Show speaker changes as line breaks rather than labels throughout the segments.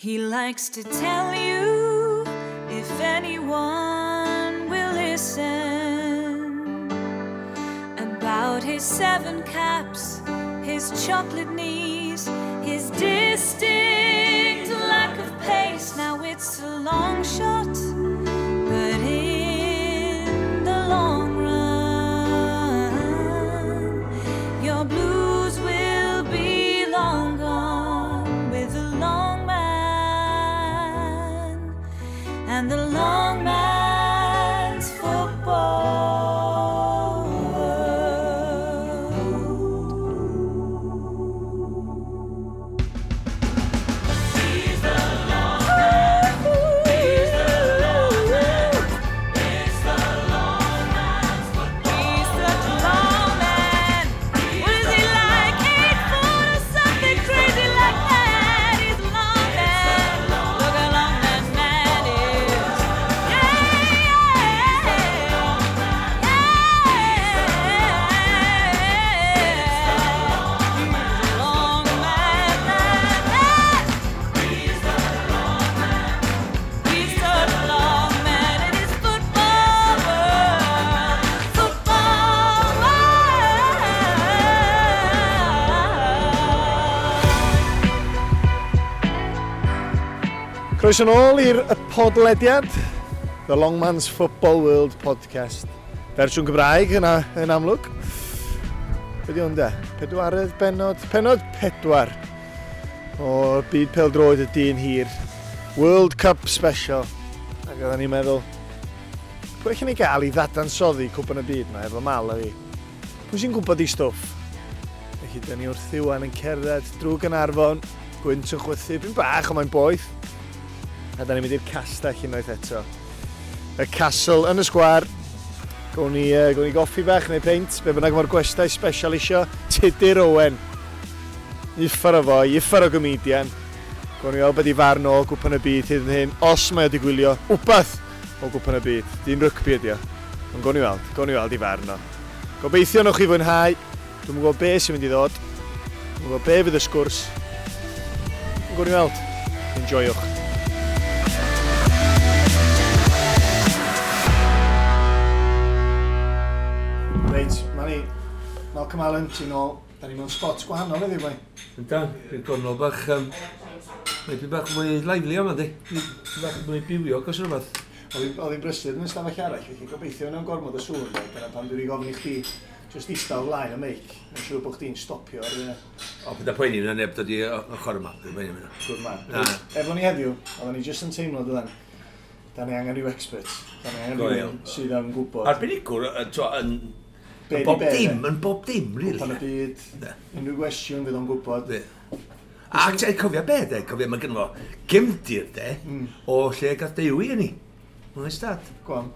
He likes to tell you if anyone will listen about his seven caps, his chocolate knees, his distinct lack of pace. Now it's a long shot, but in the long run, your blues will be long gone with the long man and the long man's football world. He's the long man. He's the long man. It's the long man's football. He's such a long man. What is he like? 8 foot or something crazy like that. He's a long man. Look how long that man is. Yeah, yeah, yeah. He's a long man, man, man. He's such a long man in his football world. Football world.
Croeso nôl i'r y podlediad, The Long Man's Football World Podcast. Fersiwn Gymraeg yna yn amlwg. Be di hwn de? Pedwaredd benod? Penod 4 o'r byd pêl-droed y dyn hir. World Cup Special. Ac oedden ni'n meddwl, pwy allan ni gael i ddadansoddi cwpan y byd yma efo Mal a fi? Pwy sy'n gwybod i stwff? Felly, dyn ni wrth Iwan yn cerdded drwy Gaernarfon, gwynt yn chwythu, byn bach, ond mae'n boeth. A da ni'n mynd i'r castell unwaith eto. Y castle yn y sgwar. Gawn ni goffi bach neu peint, be bynnag mae'r gwestai special isio. Tudur Owen. Uffar o foi, uffar o gomedian. Gawn ni weld beth i farn o Gwpan y Byd hyd yn hyn, os mae o wedi gwylio wbath o Gwpan y Byd. Dyn rygbi ydi o. Ond gawn ni weld i farn o. Gobeithio newch chi fwynhau. Dwi'm yn gwybod be sy'n mynd i ddod. Dwi'm yn gwybod be fydd y sgwrs. Ond gawn ni weld. Enjoywch. Reit, ma ni. Malcolm Allen, ti'n ôl. Da ni mewn spot gwahanol heddiw, bai.
Yndan, dwi'n gornel bach, maybe bach mwy lively yma, di. Bach mwy bywiog os rhywbeth.
Oedd hi'n brysur yn y stafell arall, felly gobeithio yna'n gormod o sŵn. Bai. Dyna pam dwi wedi gofyn i chdi just ista o flaen y meic. Mae'n siŵr bod chdi'n stopio ar y
O, bydd poeni yna neb dod i ochr yma. Dwi'n poeni yna.
Good man.
Na.
Efo ni heddiw, oedden ni jyst yn teimlo dydan, da ni angen rhyw expert. Da ni angen
Go
rhywun
iawn.
sydd yn gwybod.
Arbenigwr, t'wo, yn
Be
yn
di
bob
be,
dim,
de?
yn bob dim, really.
Cwpan y byd,
Ne.
unrhyw gwestiwn fydd o'n gwybod.
Be. A ti'n cofio be, de? Cofio, mae gynno fo gefndir, de, o lle gath Dewi yn ni. Oes dad.
Go on.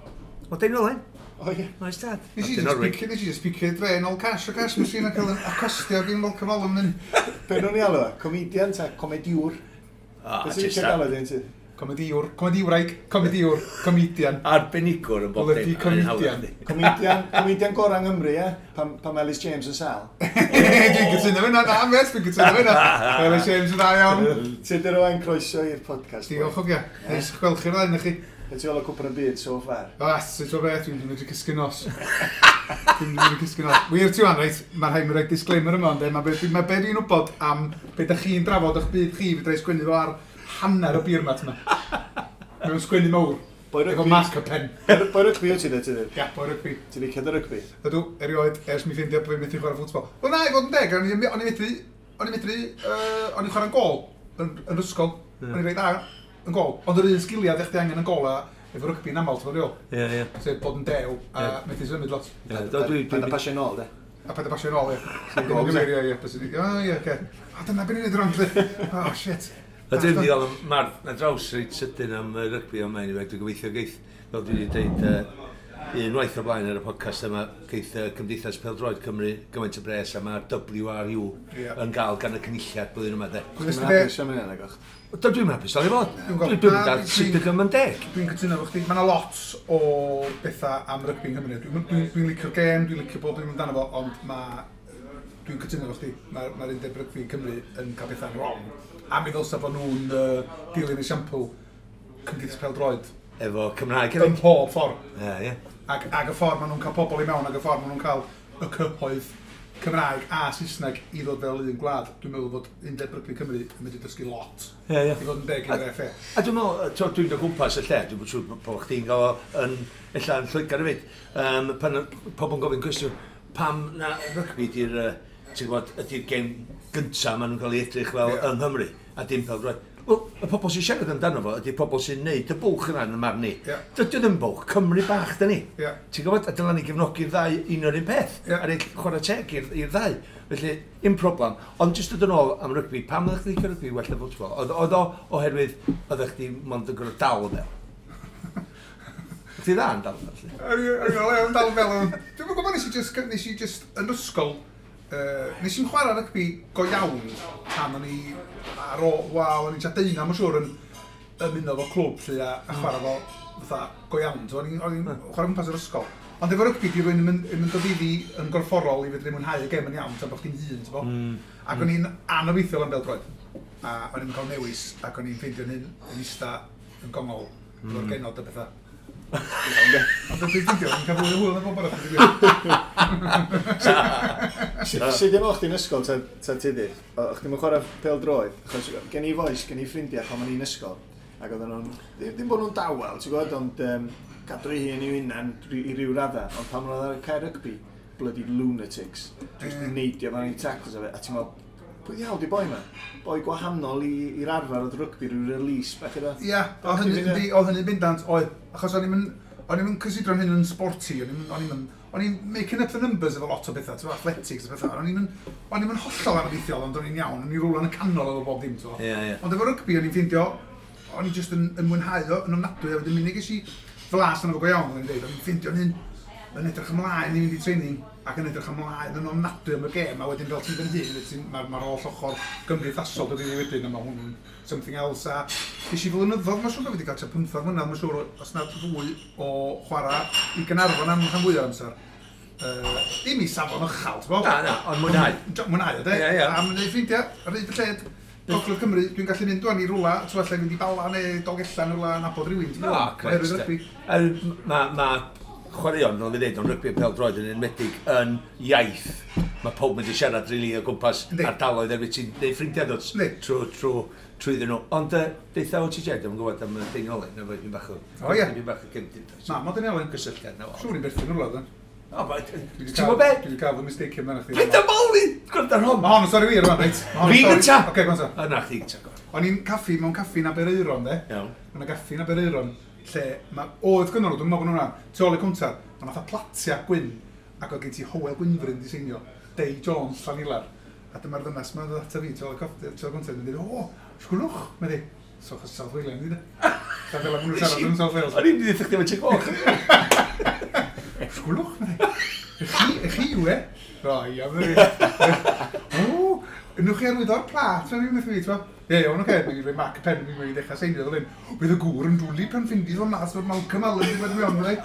O Deiniolen.
O ie.
Oes dad.
Nes i just picio, nes i just picio dre nôl cash o cash machine ac cael acostio gyn Malcolm Allen yn
Be nhw'n ei alw o? Comedian ta comediwr? Beth sy'n eisiau galw dyn ti?
Comediwr, comediwraig, comediwr, comedian.
Arbenigwr yn bob dim.
Bloody comedian.
Comedian, comedian gorau yng Nghymru, ie? Pan mae Elis James yn sal.
Dwi'n cytuno fyna, na, mes, dwi'n cytuno fyna. Elis James yn dda iawn.
Tudur Owen, croeso i'r podcast. boi.
Diolch o gia. Neis gweld chi'r ddau chi.
Be ti'n feddwl o Cwpan y Byd so far?
O, sut o beth, dwi'n mynd i cysgu nos. Dwi'n mynd i cysgu nos. Wir ti wan, reit, mae'n rhaid mi roi disclaimer yma, ond mae be dwi'n wybod am be da chi'n drafod o'ch byd chi, fedra i sgwennu fo ar hanner y beer mat yma. Mewn sgwennu mawr.
Boi
Efo
rygbi.
marker pen.
Boi rygbi wyt ti de, ti de?
Ia, boi rygbi.
Ti'n licio dy rygbi?
Ydw, erioed, ers mi ffeindio bod fi'n methu chwarae ffwtbol. Wel na, i fod yn deg, o'n i medru, o'n i'n chwarae'n gol yn ysgol. O'n i'n reit dda yn gol. Ond yr un sgiliau ddech chi angen yn gol a efo rygbi'n aml, ti'n fawr
Ie, ie.
Sef bod yn dew a
Ie.
methu symud lot.
Ie, do,
Paid â pasio nôl, de?
A paid â pasio nôl, ie.
Sy'n gol,
Ddim yn gyfeirio, ie. Bys i- O, ie, oce. O, dyna beth ni'n neud wrong, lle. Oh, shit.
A dwi'n mynd i gael mar na draws reit sydyn am rygbi yma, anyway, dwi'n gobeithio geith, fel dwi wedi dweud, unwaith o blaen ar y podcast yma, geith Cymdeithas Pêl-droed Cymru gymaint o bres a mae'r WRU yn gael gan y cynulliad blwyddyn yma, de.
Nes
Ti'n
ti be-
hapus am hynny, nag o'ch?
Do, dwi'n hapus, dal i fod.
Dwi'n gweld.
Dwi'n
Na,
dal sut ydym yn deg.
Dwi'n cytuno efo chdi. Mae yna lot o bethau am rygbi yng Nghymru. Dwi'n licio'r gêm, dwi'n licio bob dim amdano fo, ond mae... Dwi'n cytuno efo chdi. Mae'r ma undeb rygbi yn Cymru yn cael bethau'n wrong. A mi ddylsa bod nhw'n dilyn esiampl Cymdeithas Pêl-droed.
Efo Cymraeg
Yn
hefyd.
pob ffordd.
Ie, ie.
Ac y ffordd maen nhw'n cael pobl i mewn, ac y ffordd maen nhw'n cael y cyhoedd Cymraeg a Saesneg i ddod fel un gwlad. Dwi'n meddwl bod Undeb Rygbi Cymru yn mynd i dysgu lot.
Ie, ie.
I fod yn deg i'r FA.
A dwi'n meddwl, dwi'n dod gwmpas y lle, dwi'n siŵr bod chdi'n gael o yn, ella yn Lloegr hefyd, pan pobl yn gofyn cwestiwn, pam na rygbi di'r, ti'n gwybod, ydy'r gêm gynta maen nhw'n cael ei edrych fel yng Nghymru, a dim pêl-droed. Wel, y pobl sy'n siarad amdano fo ydy'r pobl sy'n neud y bwlch yna yn y marn ni.
Ie.
Dydy o ddim bwlch, Cymru bach da ni.
Ie.
Ti'n gwybod, a dyla ni gefnogi'r ddau un o'r un peth.
Ie.
A rhaid chwarae teg i'r ddau. Felly, un problem. Ond jyst dod yn ôl am rygbi, pam oeddech chdi licio rygbi well na ffwtbol? Oedd o oherwydd oeddech chdi mond yn gorfod dal y bel? Chdi dda yn dal y bel, felly?
O'n i'n dal fel yn. Dwi'n gwybod, nes i just yn ysgol, nes i'n chwarae rygbi go iawn tan o'n i ar ôl, wel, o'n i'n tua 19, mae'n siŵr, yn ymuno efo clwb lle a chwarae fo fatha go iawn. So, o'n i'n chwarae gwmpas yr ysgol. Ond efo rygbi, di rwy'n yn mynd o ddifi yn gorfforol i fedru mwynhau y gem yn iawn, tan bod chdi'n hun, ti'n bo? Ac o'n i'n anobeithiol am bêl-droed. A o'n i'n cael newis, ac o'n i'n ffeindio'n hun yn ista yn gongol, efo'r genod a bethau. Ond dwi'n ffeindio, o'n i'n cael fwy o hwyl na bob arall.
Sut dim o'ch chdi'n ysgol ta ti di? O'ch chdi'n chwarae pêl-droed? Achos gen i fois, gen i ffrindiau pan o'n i'n ysgol. Ac oedden nhw'n, ddim bod nhw'n dawel, ti'n gwybod, ond cadw ei hun i'w hunan i ryw radda. Ond pan o'n ar y cae rygbi, bloody lunatics. Just neidio fan i tackles a fe. A ti'n meddwl, pwy ddiawl di boi ma? Boi gwahanol i'r arfer oedd rygbi, rhyw release bach iddo.
Ia, oedd hynny, yndi, oedd hynny bendant, oedd. Achos o'n i'm yn cysidro'n hyn yn sporty, o'n i'n making up the numbers efo lot o bethau, ti'n athletics a bethau. O'n i'm yn hollol anobeithiol, ond o'n i'n iawn, o'n i'n rwla yn y canol efo bob dim, ti'n
Ie, ie.
Ond efo rygbi, o'n i'n ffeindio, o'n i just yn mwynhau o, yn ofnadwy, a wedyn munud ges i flas arno fo go iawn, o'n i'n dweud, o'n i'n ffeindio'n hyn yn edrych ymlaen i fynd i training, ac yn edrych ymlaen yn ofnadwy am y gêm, a wedyn fel ti'n fy hun, mae'r holl ochr gymdeithasol dod i fi wedyn, a mae hwnnw'n something else, a ges i flynyddoedd, mae'n siŵr bod fi wedi cael tua 15 mlynedd, mae'n siŵr, os na fwy o chwarae i Gaernarfon am rhan fwy o'r amser. Ddim i safon uchel, ti'n bod?
Na, na, ond mwynhau.
Mwynhau, de?
Ie, ie.
A mae'n gwneud ffrindiau, ar hyd y lled. Gogledd Cymru, dwi'n gallu mynd wan i rwla, ti'n allai fynd i Bala neu Dolgellau neu rwla, nabod rhywun, ti'n
O,
gwbod?
grêt,
Oherwydd
de.
rygbi.
Ma chwaraeon, fel fi dweud, ond rygbi a pêl-droed yn enwedig yn iaith. Mae pawb mynd i siarad rili o gwmpas ardaloedd erbyn ti'n neud ffrindiau dod trwy iddyn nhw. Ond deutha o ti Jed, dwi'n gwybod am y Deiniolen, na fo, dwi'n bach o...
O, ie.
Dwi'n bach o gefndir.
Na, mae Deiniolen.
Gysylltiad na fo.
Siŵr i'n berthyn rwla, de.
O, ma-
Dwi 'di
Ti'n
cael-
gwybod be?
Dwi wedi cael fy mistake amdano chdi.
Paid â moli! Gwrdd ar hon!
Mae hon yn stori wir yma, reit? Ma' hon yn
Fi
stori-
gynta!
Oce, go on ta.
O, na, chdi gynta, go on.
O'n i'n caffi, mewn caffi yn Aberaeron, de.
Iawn.
Mae yna gaffi yn Aberaeron, lle ma, oedd gynnon nhw, dwi'n meddwl bod nhw'n hwnna, tu ôl i cwntar, mae fatha platia gwyn, ac oedd gen ti Hywel Gwynfryn di seinio, Dei Jones, Llanilar. A dyma'r ddynas ma'n dod ata fi, tu ôl i coffi, tu ôl i cwntar, yn dweud, o, sgwlwch, mae di. So, achos South Wales, ni de. Fel maen nhw'n siarad yn South Wales.
O'n i'n mynd i ddeud chdi efo ti'n goch.
Sgwlwch, mae di. Y chi yw e? O, ia, mae di. O, newch chi arwyddo'r plat, mae'n i'n fi, ti'n Ie, iawn, oce, mae'n rhoi marc y pen, mae'n dechrau seinio fel hyn. Bydd y gŵr yn dwlu pan ffindi fo'n mas o'r Malcolm Allen wedi bod mewn, mae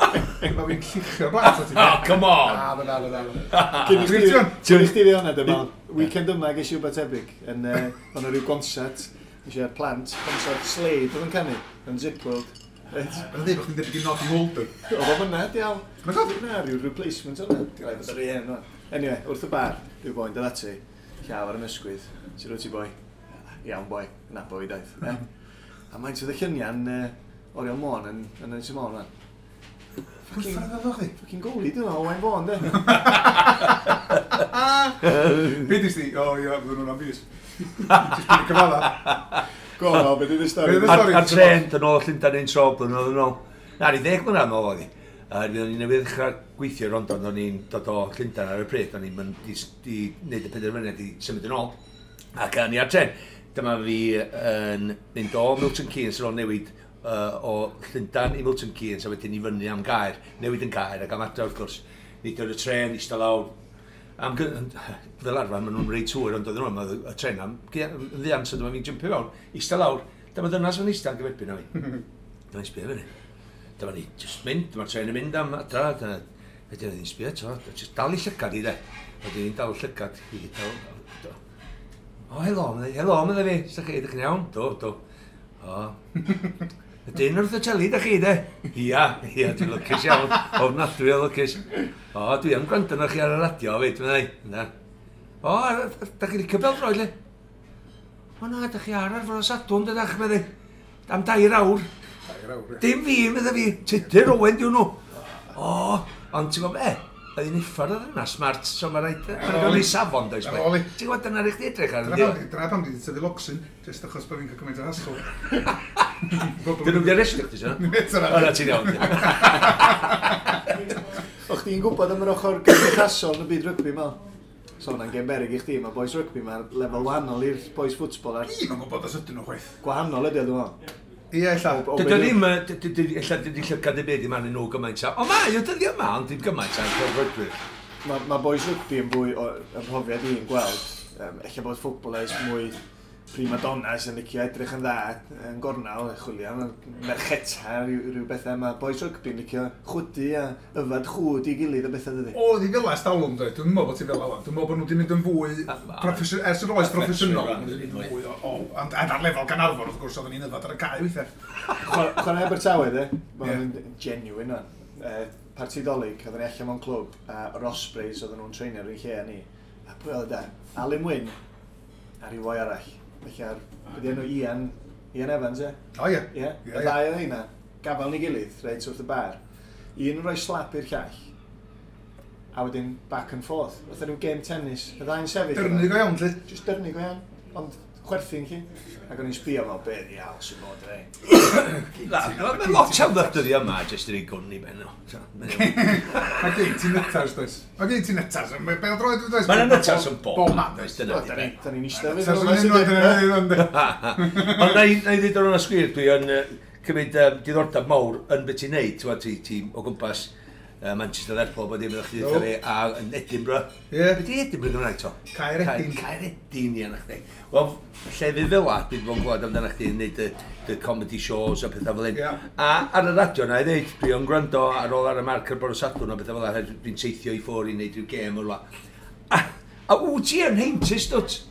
Mae fi'n lluchio'r blat o ti.
Oh, come on!
Na, na, na, na.
Cyn i
Dwi'n
chdi
ti
cyn i chdi fi hwnna, dyma, weekend yma ges i wbeth tebyg, yn, o'n rhyw gonsert, nes i ar plant, concert Slade oedd yn canu, yn Zip World. Reit.
Mae'n dweud bod chdi'n debyg i Noddy Holder.
Oedd o'n fyna, diawl.
Mae'n dod?
Na, rhyw replacement o'na. Rhaid bod yr un yma. Anyway, wrth y bar, rhyw boi'n dod ati, llaw ar y ysgwydd. Sut wyt ti boi? Iawn boi, nabo fi daeth. Eh? A mae'n sydd y lluniau'n Oriel Môn yn Ynys Môn rwan.
Pwy ffordd oedd o chdi?
Fucking goalie dyn nhw, Owain Fôn, de.
Be dis di? O, ia, fydden nhw'n am fus. Just byd i cyfala.
Go on, Al, be di stori?
Be 'di stori?
Ar tren, dyn ôl Llundain un tro, blynyddoedd yn ôl. Na, ni 10 mlynedd yn ôl oedd hi. O'n i newydd ddechrau gweithio i Rondon, o'n i'n dod o Llundain ar y pryd, o'n i'n mynd i wneud y penderfyniad i symud yn ôl. Ac o'n i ar tren. Dyma fi yn mynd o Milton Keynes ar ôl newid o Llundain i Milton Keynes a wedyn i fyny am Gaer, newid yn Gaer ac am adre wrth gwrs. Nid o'r y tren, eistedd lawr. Fel arfer, maen nhw'n reit hwyr, ond oedden nhw, oedd y tren am yn ddian, so dyma fi'n jympio fewn, eistedd lawr. Dyma ddynas yn eistedd yn gyferbyn â fi. Dyma ni'n sbio fyny. Dyma ni just mynd, dyma'r tren yn mynd am adra, dyna, wedyn oedd hi'n sbio eto, just dal i llygad i de. Wedyn hi'n dal llygad i, dal. O, helo, medda, helo, medda fi. Sa'ch chi, ydych chi'n iawn? Do, do. O. Y dyn wrth y teli, da chi, de? Ia, ia, dwi'n lwcus iawn. Ofnadwy o lwcus. O, dwi am gwrando arnoch chi ar y radio, fyd, medda i. Na. O, da chi licio bêl-droed, le? O na, da chi ar fore Sadwrn, dydach, medda i. Am 2 awr.
2 awr, ie.
Dim fi, medda fi. Tudur Owen, diwn nhw. O, ond ti'n gwybod be? Oedd hi'n uffar oedd yna, smart, so mae rhaid... Mae'n gael ei safon, does?
Ar ôl i.
Ti'n gwybod, dyna rhaid chdi edrych ar yndi?
Dyna pam di tyfu locsyn, jyst achos bod fi'n cael cymaint o hassle.
Dyn nhw'n di arestio chdi, so? O, na, ti'n iawn.
O, chdi'n gwybod am yr ochr gymdeithasol yn y byd rygbi, Mal? So hwnna'n gêm beryg i chdi, mae boys rygbi, mae'r lefel wahanol i'r boys ffwtbol.
Dwi'm yn gwybod os ydyn nhw chwaith.
Gwahanol ydy o, dwi'n meddwl.
Ie, ella.
Dydy o ddim, ella dydy llygad y byd i arnyn nhw gymaint a... O, mae o dyddi yma, ond dim gymaint a'n pêl-droedwyr.
Mae boys rygbi yn fwy o ymhrofiad i'n gweld. Ella bod footballers mwy prima donnas yn licio edrych yn dda yn gornel, chwilio am mercheta, rhyw bethau. Mae boys rygbi yn licio chwydu a yfad chwd i gilydd a bethau dydy.
Oedd hi fel ers talwm, dweud. Dwi'n meddwl bod ti fel awan. Dwi'n meddwl bod nhw wedi mynd yn fwy, ers yr oes proffesiynol, maen nhw wedi mynd yn fwy o, ond ar lefel Gaernarfon, wrth gwrs, oedden ni'n yfad ar y cae weithiau.
Chwarae Abertawe, de? Mae'n genuine, o'n. Parti Dolig, oedden ni allan mewn clwb, a yr Ospreys oedden nhw'n treinio ar un lle a ni. A pwy oedd e? Alun Wyn, a rhyw foi arall. Felly ar, beth enw Ian Evans, e?
O, ie.
Ie, y ddau oedd heina, gafel ni gilydd, reit wrth y bar. Un yn rhoi slap i'r llall, a wedyn back and forth. Fatha rhyw game tennis, y ddau'n sefyll.
Dyrnu go iawn, lle?
Just dyrnu go iawn, ond chwerthin chi. Ac o'n i'n sbio fel, be ddiawl sy'n bod rei.
Mae lot iawn ddod dyddi yma, jyst yr ei gwn i ben nhw.
Mae gen ti nytars, does? Mae gen ti nytars. Mae bêl-droed, does?
Mae 'na nytars yn bob man, does? Dyna di be.
Da ni'n eistedd
fydd nhw'n.
Ond na i ddweud o'r onest gwir, dwi yn cymryd diddordeb mawr yn beth ti'n neud, ti o gwmpas Manchester, Lerpwl, bod dim ydych chi ddweud fi, a yn Edinburgh.
Ie.
Be di Edinburgh Gymraeg to?
Caeredin.
Caeredin, ie, na chdi. Wel, llefydd fel la, dwi'n bod yn gwybod amdano chdi yn neud y comedy shows a pethau fel hyn. A ar y radio na i ddeud, dwi yn gwrando ar ôl ar y marc ar bore Sadwrn a pethau fel la, dwi'n teithio i ffwrdd i wneud rhyw gêm o'r la. A wyt ti yn heintus, dwt?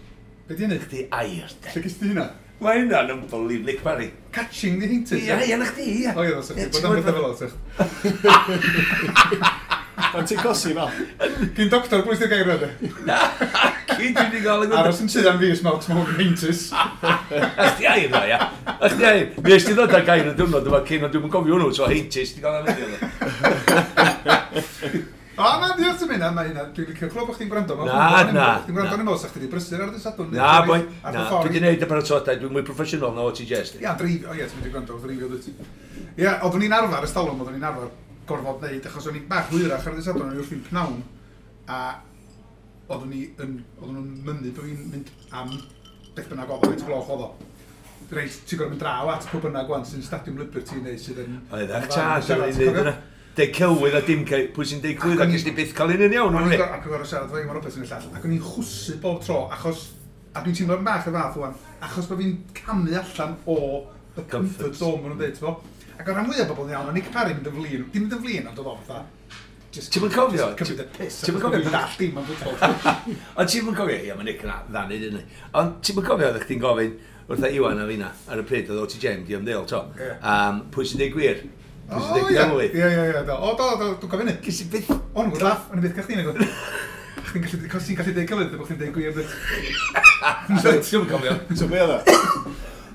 Be di hynny?
Chdi air, de.
Lle gest ti hynna?
Mae hynna'n unbelievable, Nick Parry.
Catching the heintus?
Ie, ie, na chdi, ie.
O ie, os ydych bod am bethau fel o, sych.
Ond ti'n cosi fel?
Gyn doctor, bwys di'r gair yna?
Na, cyn dwi wedi gael y gwybod.
Aros yn sydd am fi, smell small heintus.
A chdi air na, ia. A chdi air. Mi es ti ddod â gair y diwrnod yma cyn, ond dwi'm yn cofio hwnnw, so heintus, di gael am heddiw.
O, na, diolch ti'n mynd, mae hynna, dwi'n licio clywed bod chdi'n gwrando.
Na, na.
Chdi'n gwrando yn ymwneud, chdi wedi brysur ar y Sadwrn.
Na, boi, na, dwi wedi gwneud y paratoadau, dwi'n mwy proffesiynol na o ti jest.
Ia, dreifio, o ie, ti'n mynd i gwrando, dreifio dwyt. Ia, oeddwn ni'n arfer, ystalwm, oeddwn ni'n arfer gorfod wneud, achos o'n i'n bach hwyrach ar y Sadwrn, o'n i wrthi'n pnawn, a oeddwn nhw'n mynnu bod fi'n mynd am beth bynnag oedd o, faint gloch oedd o. Reit, ti'n gorfod mynd draw at pwy bynnag wan sy'n Stadiwm Liberty neu sydd yn...
Oeddach, ta, sy'n ei wneud yna. Deud celwydd a dim pwy sy'n deud celwydd ac ysdi byth cael un yn iawn.
Ac o'n gorfod siarad efo Iwan Roberts yn y llall, ac o'n i'n chwsu bob tro, achos, a dwi'n teimlo'n bach y fath wan, achos bod fi'n camu allan o y comfort zone, maen nhw'n dweud, ti'n Ac o'r rhan fwyaf o bobl yn iawn, o'n Nick Parry mynd yn flin, dim mynd yn flin, ond oedd o fatha,
Ti'm yn cofio?
Cymryd y piss.
Ti'm yn cofio?
Dwi'n dall dim am ffwtbol.
Ond ti'm yn cofio, ia, mae Nick yn dda neud hynny. Ond ti'm yn cofio, oeddech chdi'n gofyn wrtha Iwan a finna ar y pryd oedd O.T. James di ymddeol, to. Pwy sy'n deud gwir? Pwy sy'n deud celwydd?
Ie, ie, ie. O, do, do, dwi'n cofio hynny.
Ges i byth...
O'n i'n laff, o'n i byth gael chdi nag. Chdi'n gallu deud celwydd, bod chdi'n deud gwir.
Ti'm yn cofio.
So be oedd o?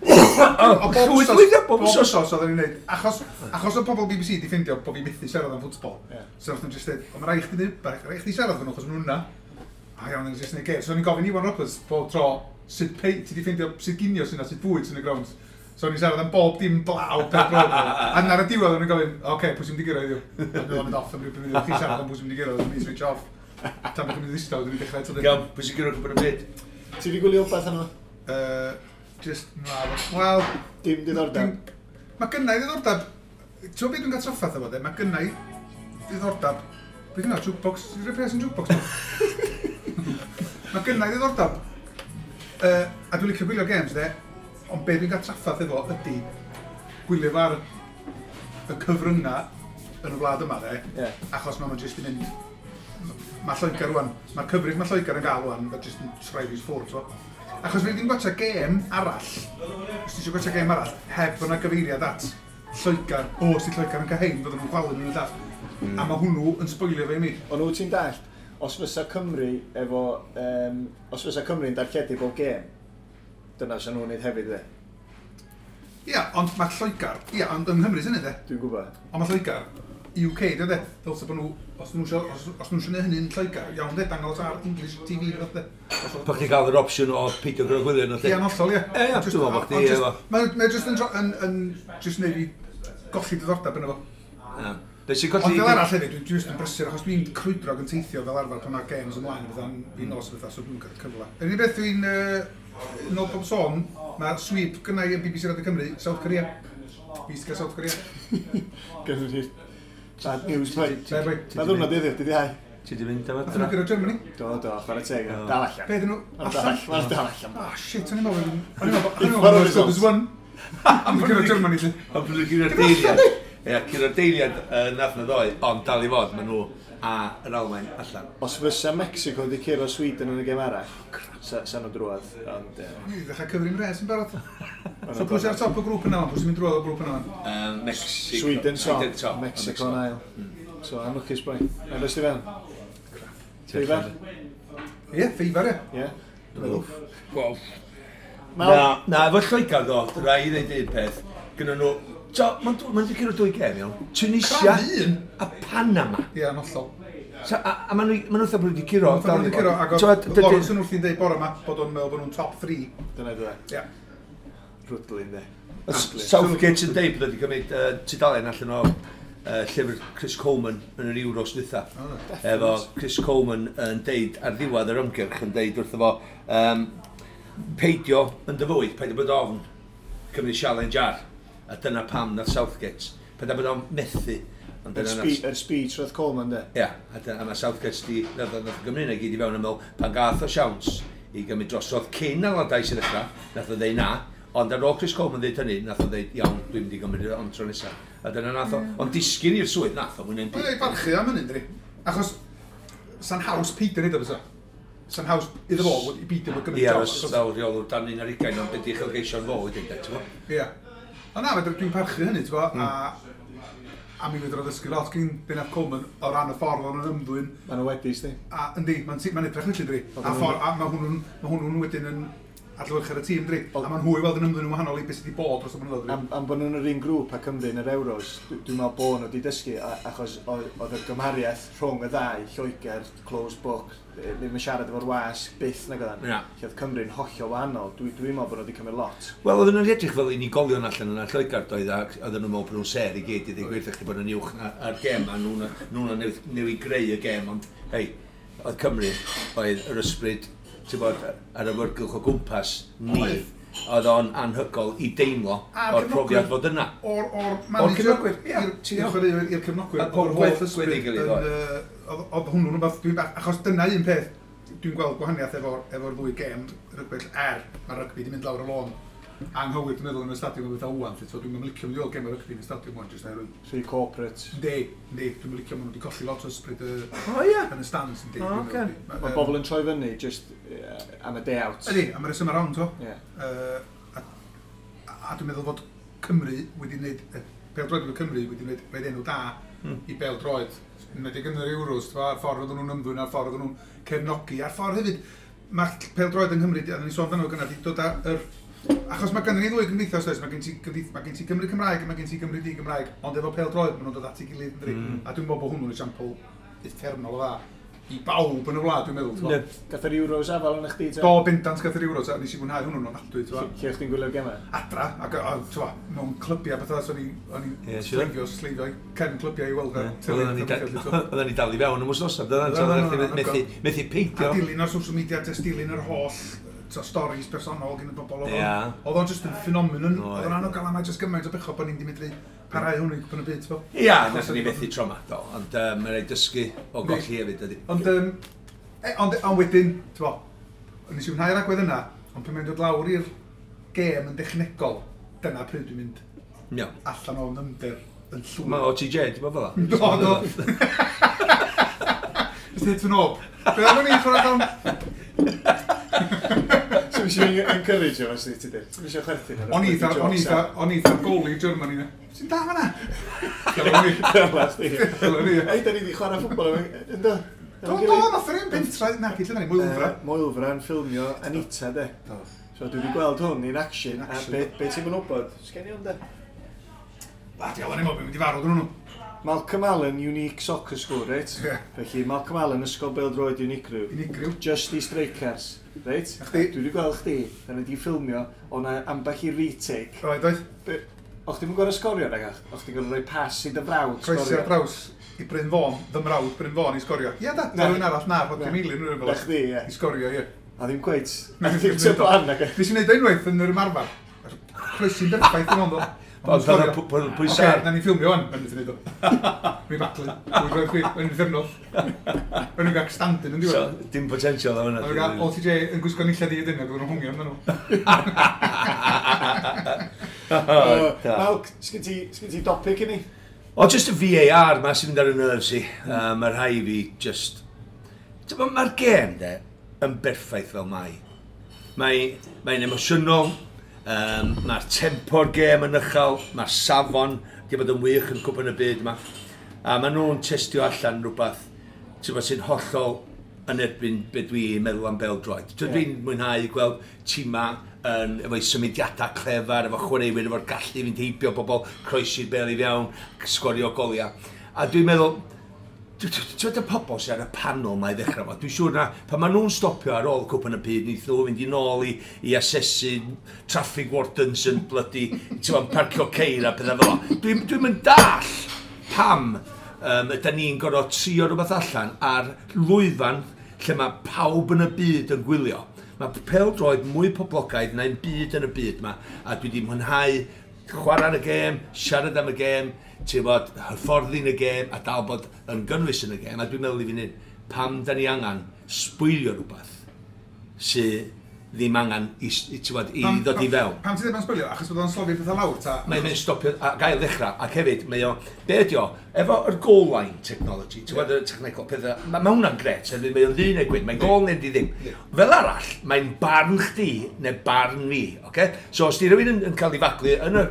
O, bob wsos oedden ni'n neud. Achos oedd pobl BBC di ffindio bod fi methu siarad am ffwtbol. So nath nhw'n just dweud, o, mae rhaid chdi neud, rhaid chdi siarad efo nhw, achos nhw'n yna. A iawn, nhw'n just neud gêm. So o'n i'n gofyn Iwan Roberts bob tro, sut pei, ti di ffindio, sut ginio sy'n na, sut bwyd sy'n y grounds. So o'n i'n siarad am bob dim blaw, pêl-droed. A ar y diwedd o'n i'n gofyn, oce, pwy sy'n mynd i gyrraedd heddiw? A dwi'n mynd off am ryw bum munud, chi'n siarad am pwy sy'n mynd i gyrraedd, dwi'n switch off. Tan bod chi'n mynd i ddistaw, dwi'n dechrau eto.
Iawn, pwy sy'n gyrraedd cwpan y byd?
Ti wedi gwylio wbath yno?
Just, na, wel...
Dim diddordeb.
Mae gynna i ddiddordeb. Ti'n gwybod beth dwi'n cael trafferth efo de? Mae gynna i ddiddordeb. Beth yna, jukebox? Ti'n rhoi pres yn jukebox? Mae gynna i ddiddordeb. A dwi'n licio gwylio games de, ond be dwi'n cael trafferth efo ydy gwylio fo ar y cyfryngau yn y wlad yma de, achos mae'n jyst yn mynd... Mae Lloegr rwan, mae'r cyfrif mae Lloegr yn gael rwan, mae jyst yn troi fi ffwrdd, so. Achos fi ddim gwatcha gêm arall, os ti eisiau gwatcha gêm arall, heb fod 'na gyfeiriad at Lloegr, o, os di Lloegr yn cael hein, fydden nhw'n chwalu nhw'n y llall. A mae hwnnw yn sboilio fe i mi.
Ond wyt ti'n dallt, os fysa Cymru efo, os fysa Cymru'n darlledu bob gêm, dyna sy'n nhw'n neud hefyd, de.
Ia, ond mae Lloegr, ia, ond yng Nghymru sy'n neud e.
Dwi'n gwybod.
Ond mae Lloegr, UK, dwi'n de, dylse bod nhw, os nhw isio, os nhw isio neud hynny'n Lloegr, iawn de, dangos ar English TV, fath de.
Bo chdi gael yr opsiwn o peidio gyda gwylio nhw,
Ie, yn hollol, ie.
Ie, ie, dwi'n meddwl bo chdi efo.
Mae jyst yn jyst neud fi golli diddordeb yno fo.
Ie. Be sy'n
Ond
colli...
fel arall hefyd, dwi'n jyst yn brysur, achos dwi'n crwydro ac yn teithio fel arfer pan mae'r games ymlaen, bydda'n fi nos o bethau, so dwi'n cael cyfle. Yr unig beth dwi'n, yn ôl pob sôn, mae sweep gynna i yn BBC Radio Cymru, South Korea. Fi sy'n cael South Korea.
Gynnu ni bad news, boi.
Be, boi?
Mae ddwrnod heddiw, dydd Iau.
Ti di mynd am
Nath nhw
adra?
gyrra Germany.
Do, do, chwarae teg.
Do.
Dal allan.
Be ydyn nhw?
Ma'n dal allan. Ma'n dal allan.
Oh shit, o'n i'n meddwl, o'n i'n meddwl, o'n i'n
Ffordd
meddwl,
results.
there's one. Am gyrra Germany, lly.
Ond bod nhw'n curo'r deiliad. Ie, curo'r deiliad nath na ddoe, ond dal i fod, maen nhw a yr Almaen allan.
Os fysa Mexico wedi curo Sweden yn y gêm arall, sa nhw drwodd, ond...
Ni wedi dechrau cyfri'n res yn barod.
ma'
So
nhw'n
pwy sy'n ar top y grŵp yna, pwy sy'n mynd drwodd o grŵp yna?
Mexico.
Sweden top,
Sweden top.
Mexico yn ail. So, anlwcus boi. Na, beth ti fewn? Ffeifar?
Ie, ffeifar, ie.
Ie.
Wel,
Mal?
Na, na, efo Lloegr ddo, rai i ddeud un peth, gyda nhw, so, ma'n ma'n di curo dwy gêm, iawn. Tunisia
Crafu un.
a Panama.
Ie, yn hollol.
So, a ma'n nhw, ma' nhw fatha bod nhw wedi curo.
Maen nhw wedi curo, ac
T'wod,
oedd Lawrence yn wrthi'n deud bore yma bod o'n meddwl bod nhw'n top 3.
Dyna dwi.
Ie.
Rwdlin, de.
Southgate yn deud bod wedi cymryd tudalen allan o llyfr Chris Coleman yn yr Euros dwytha. Efo Chris Coleman yn deud ar ddiwedd yr ymgyrch yn deud wrtho fo peidio yn dy fywyd, peidio bod ofn cymryd challenge ar. A dyna pam nath Southgate. Peidio bod ofn methu. Ond
Yr
dyna nath
speech roedd Coleman, de.
Ia, a mae Southgate di, nath o Gymru yna gyd i fewn yn meddwl, pan gath o siawns i gymryd drosodd cyn Allardyce i ddechrau, nath o ddeud na, ond ar ôl Chris Coleman ddeud hynny, nath o ddeud, iawn, dwi'n mynd i gymryd o ond tro nesaf. A dyna nath o, ond disgyn i'r swydd nath o, mwyn
Mae'n ei barchu am hynny, ynddi? Achos, sa'n haws peidio neud o fysa. Sa'n haws iddo fo i beidio bod gymryd
Ie,
job.
os fel rheolwr dan 21, ond beth i uchelgeisio'n fo wedyn, de, ti'n gwbod?
Ie. Ond na, fedra- dwi'n parchu hynny, ti'n gwbod, a mi fedra ddysgu lot gyn Bennett Coleman o ran y ffordd o'n ymddwyn.
Maen nhw wedi, sti.
A yndi, mae'n edrych felly, dri.
Oedd
A
nhw'n-
ffordd, a mae hwnnw'n wedyn yn adlewyrchu ar y tîm, dri. A mae'n hwy weld yn ymddwyn yn wahanol i beth sydd wedi bod dros y blynyddoedd, dri.
Am bod nhw'n yr un grŵp a Cymru yn yr Euros, dwi'n meddwl bod nhw wedi dysgu, achos oedd y gymhariaeth rhwng y ddau, Lloegr, closed book, ddim yn siarad efo'r wasg, byth nag oeddan.
Na.
Lle oedd Cymru'n hollol wahanol, dwi'n meddwl bod nhw wedi cymryd lot.
Wel, oedden nhw'n edrych fel unigolion allan yna Lloegr, doedd, ac oedden nhw'n meddwl bod nhw'n ser i gyd i ddweud gwir chdi bod nhw'n uwch a'r gêm, a nhw'n newid greu y gêm, ond, hei, oedd Cymru, oedd yr ysbryd, ti'n bod, ar y wyrgylch o gwmpas ni,
Oedd.
oedd o'n anhygol i deimlo
A'r
o'r profiad
cefnogwyr.
fod yna.
O'r
O'r
manager,
cefnogwyr, ie, ti'n
i'r
iawn.
chwaraewyr, i'r cefnogwyr,
A
o'r
pob
holl
gwaith
ysbryd
gweddi gilydd,
yn,
oedd.
oedd hwnnw'n rhywbeth dwi'n bach, achos dyna un peth, dwi'n gweld gwahaniaeth efo'r ddwy gêm rygbi, mae rygbi wedi mynd lawr y lôn anghywir, dwi'n meddwl, yn y stadiwm o bethau ŵan, so dwi'n licio mynd i weld gêm o rygbi yn y stadiwm ŵan, jyst oherwydd.
Rhy corporate.
Yndi, yndi, dwi'n licio, maen nhw wedi colli lot o ysbryd
O, ie.
yn y stands, yndi.
O,
dwi'n
ocê.
meddwl.
Mae bobl yn troi fyny just am y day out.
Ydy, am y reswm around, to.
Ie.
A dwi'n meddwl fod Cymru wedi gwneud, pêl-droed efo Cymru wedi gwneud rhaid enw da i bêl-droed. Enwedig yn yr Euros, t'bo, a'r ffordd oedden nhw'n ymddwyn, a'r ffordd oedden nhw'n cefnogi, a'r ffordd hefyd, mae pêl-droed yng Nghymru, a ni sôn amdano fo gynna, 'di dod â yr... Achos mae gynnon ni ddwy gymdeithas, oes, mae gen ti Gymru Cymraeg a mae gen ti Gymru di-Gymraeg, ond efo pêl-droed maen nhw'n dod at ei gilydd, ynddi? A dwi'n meddwl bod hwnnw'n esiampl uffernol o dda i bawb yn y wlad, dwi'n meddwl. t'bo.
Yndi.
Gath yr Euros afal yn chdi, te?
Do, bendant gath yr Euros, a nes i fwynhau hwnnw'n ofnadwy, t'bo.
Lle o'ch chdi'n gwylio'r gemau?
Adra, ac t'bo, mewn clybiau bethau, so o'n i'n
Ie, siŵr.
sleifio i cefn clybiau i weld y teledu
Oedden ni
a petha, t'bo.
oedden ni dal i fewn am wythnos, oedden
Oedden,
ni
oedden,
methu peidio.
A dilyn ar social media, jyst dilyn yr holl stories personol gen y bobl. Oedd
Ie.
Oedd o'n just yn phenomenon.
Oedd.
Oedd o'n anogael am jyst gymaint o bechod bod ni'n di medru parhau hwnnw i gwpan y byd, t'bo.
Ia, nathon ni methu tro 'ma, do, ond mae'n rhaid dysgu o golli hefyd, ydy.
Ond, ond wedyn, t'bo, nes i fwynhau'r agwedd yna, ond pan mae'n dod lawr i'r gêm yn dechnegol, dyna pryd dwi'n mynd
Iawn.
allan o nymder yn llwyr.
Mae OTJ, ti'n bod fel 'a?
Do, do. Just hit fy knob. Be oedden ni'n chwarae dan?
So Ti'n eisiau encourage o, os ti dweud? Ti'n eisiau chwerthin ar y
O'n i
bloody jokes,
eitha, o'n i eitha goli Germany na. Sy'n da fan'na? Dyla ni.
a- Chdi.
Dyla ni.
Ei, da ni wedi chwarae ffwbol efo, ynddo?
Do, do, nath yr un pentra, na, gyd lle ni, Moelfra.
Moelfra yn ffilmio Anita, de.
Do.
So dwi wedi gweld hwn in action,
In
a
action.
be ti'n mynd wybod? Sgen i hwn, de?
Ba, diawl, o'n i'n meddwl, mynd i farw dyn nhw.
Malcolm Allen, unique soccer school, reit?
Ie.
Felly, Malcolm Allen, ysgol bêl-droed unigryw.
Unigryw.
Just i strikers, reit?
Na chdi.
Dwi wedi gweld chdi, da ni wedi ffilmio, o'na ambell i retake.
Roedd, oedd.
O'ch ti'n gorau sgorio, nag ach? O'ch ti'n gorau rhoi pas i dy frawd
Croesi
sgorio?
ar draws i Bryn Fôn, fy mrawd Bryn Fôn i sgorio. Ie, da,
Na.
rhywun arall na, Rhodri
Na.
Meilin, rhywun fel
Na chdi, ie.
I sgorio, ie.
A ddim cweit.
Na,
Na ddim ti'n plan, nag
Nes i wneud o unwaith yn yr ymarfer. Croesi'n berffaith yn ond o.
Ond pan oedd pwysau ar.
Oce, na ni ffilmio wan, mae'n mynd i wneud o. Mi baglu, dwi'n rhoi chwi, yn uffernol. O'n i'n gael stand-in yn
So,
diwedd.
dim potential o hwnna.
O'n i'n gael OTJ yn gwisgo nillad i ydyn, ac oedden nhw'n hwngio amdano nhw.
Da.
Malc, sgyn ti dopic i ni?
O, just y VAR ma sy'n mynd ar y nerves i. Mae rhai fi just... Mae'r gêm, de, yn berffaith fel mai. Mae'n emosiynol, mae'r tempo'r gêm yn uchel, mae'r safon di bod yn wych yn cwpan y byd yma. A maen nhw'n testio allan rhywbeth ti'n bod, sy'n hollol yn erbyn be dwi'n meddwl am bêl-droed.
Ie.
Dwi'n mwynhau gweld tîma yn, efo'i symudiadau clefar, efo chwaraewyr, efo'r gallu i fynd heibio bobl, croesi'r bêl i fewn, sgorio goliau. A dwi'n meddwl, ti'n gwybod y pobl sydd ar y panel ma i ddechrau fo, dwi'n siŵr na, pan maen nhw'n stopio ar ôl cwpan y byd, neith nhw fynd i nôl i asesu traffic wardens yn bloody, ti'n gwybod, parcio ceir a pethau fel o. Dwi'n mynd dall pam ydy ni'n gorfod trio rhywbeth allan ar lwyfan lle mae pawb yn y byd yn gwylio. Mae pêl-droed mwy poblogaidd na'n byd yn y byd ma, a dwi wedi mwynhau chwarae yn y gêm, siarad am y gêm, ti'n bod, hyfforddi yn y gêm, a dal bod yn gynnwys yn y gêm, a dwi'n meddwl i fi'n hyn, pam da ni angen sbwylio rhywbeth sydd ddim angen i, ti'n bod, i ddod i fewn.
Pam ti'n dweud ma'n sbwylio? Achos bod o'n slofi pethau lawr, ta?
Mae'n mynd stopio a gael ddechrau, ac hefyd, mae o, be ydi o, efo yr goal line technology, ti'n gwybod y technegol pethau, ma hwnna'n gret, hefyd mae o'n ddu neu gwyn, mae'n gol neu di ddim.
Ie.
Fel arall, mae'n barn chdi neu barn fi, oce? So os di rhywun yn cael ei faglu yn y,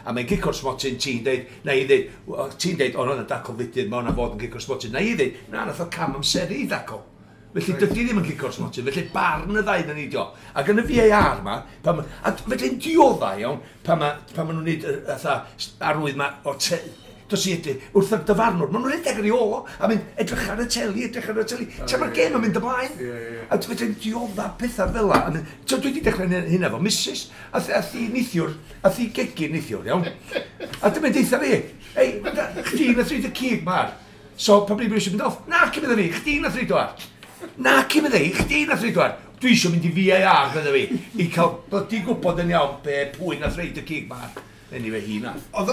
a mae'n gic o'r smotyn, ti'n deud, na i ddeud, ti'n deud, o, hwnna'n dacl fudur, mae hwnna fod yn gic o'r smotyn, na i ddeud, na, nath o cam amseru i ddacl. Felly dydy ddim yn gico'r smotyn, felly barn y ddau na ni dio. Ac yn y VAR ma, pan ma, a felly'n diodda iawn, pan ma nhw'n neud y fatha arwydd ma o te, dos i edrych, wrth y dyfarnwr, maen nhw'n edrych ar ei ôl o, a mynd, edrych ar y teli, edrych ar y teli, tra mae'r gêm yn mynd ymlaen.
Ie, ie, ie.
A felly'n diodda pethau fel la. A mynd, dwi wedi dechrau hynna efo Mrs. A thi nithiwr, a thi gegin nithiwr, iawn. A dyma'n deitha fi, ei, chdi nath reid y cig ma'r. So, pa bryd eisiau mynd off? Na, cymryd fi, chdi nath reid o ar. Na, cymryd fi, chdi nath reid o ar. Dwi eisiau mynd i VAR, fydda fi, i cael blydi gwybod yn iawn be pwy nath reid y cig ma'r. Anyway, hi nath.
Oedd...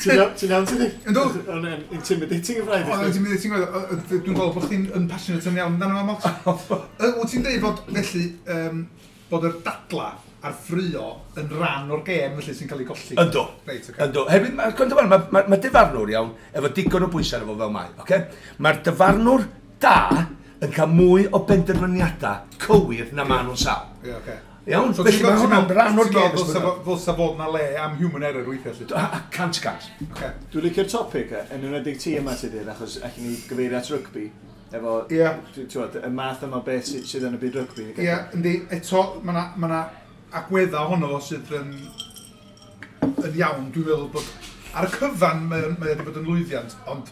Ti'n iawn, ti'n iawn, ti di?
Yndw.
O'n intimidating y braidd.
Oedd ti'n mynd, ti'n gwybod, dwi'n gweld bod chdi'n yn passionate yn iawn amdano fo, Malt. Wyt ti'n dweud bod, felly, bod yr dadla a'r ffrio yn rhan o'r gêm, felly, sy'n cael ei golli?
Yndw.
Reit, oce.
Yndw. Hefyd, mae'r gwrando, ma dyfarnwr iawn, efo digon o bwysau arno fo fel mae, oce? Mae'r dyfarnwr da yn cael mwy o benderfyniadau cywir na maen nhw'n sal.
Ie, oce.
Iawn?
So
Felly
ti'n
mae hwnna'n rhan o'r
ti'n
gêm.
meddwl ddylsa fod na le am human error weithiau, felly?
100%.
Oce.
Dwi'n licio'r topic, yn enwedig ti yma ti dyn, achos allan ni gyfeirio at rygbi, efo,
Ie.
ti'n gwbod, y math yma o beth sydd yn y byd rygbi.
Ie, yndi, eto, mae na, ma na agweddau ohono fo sydd yn iawn, dwi'n meddwl bod ar y cyfan mae o wedi bod yn lwyddiant, ond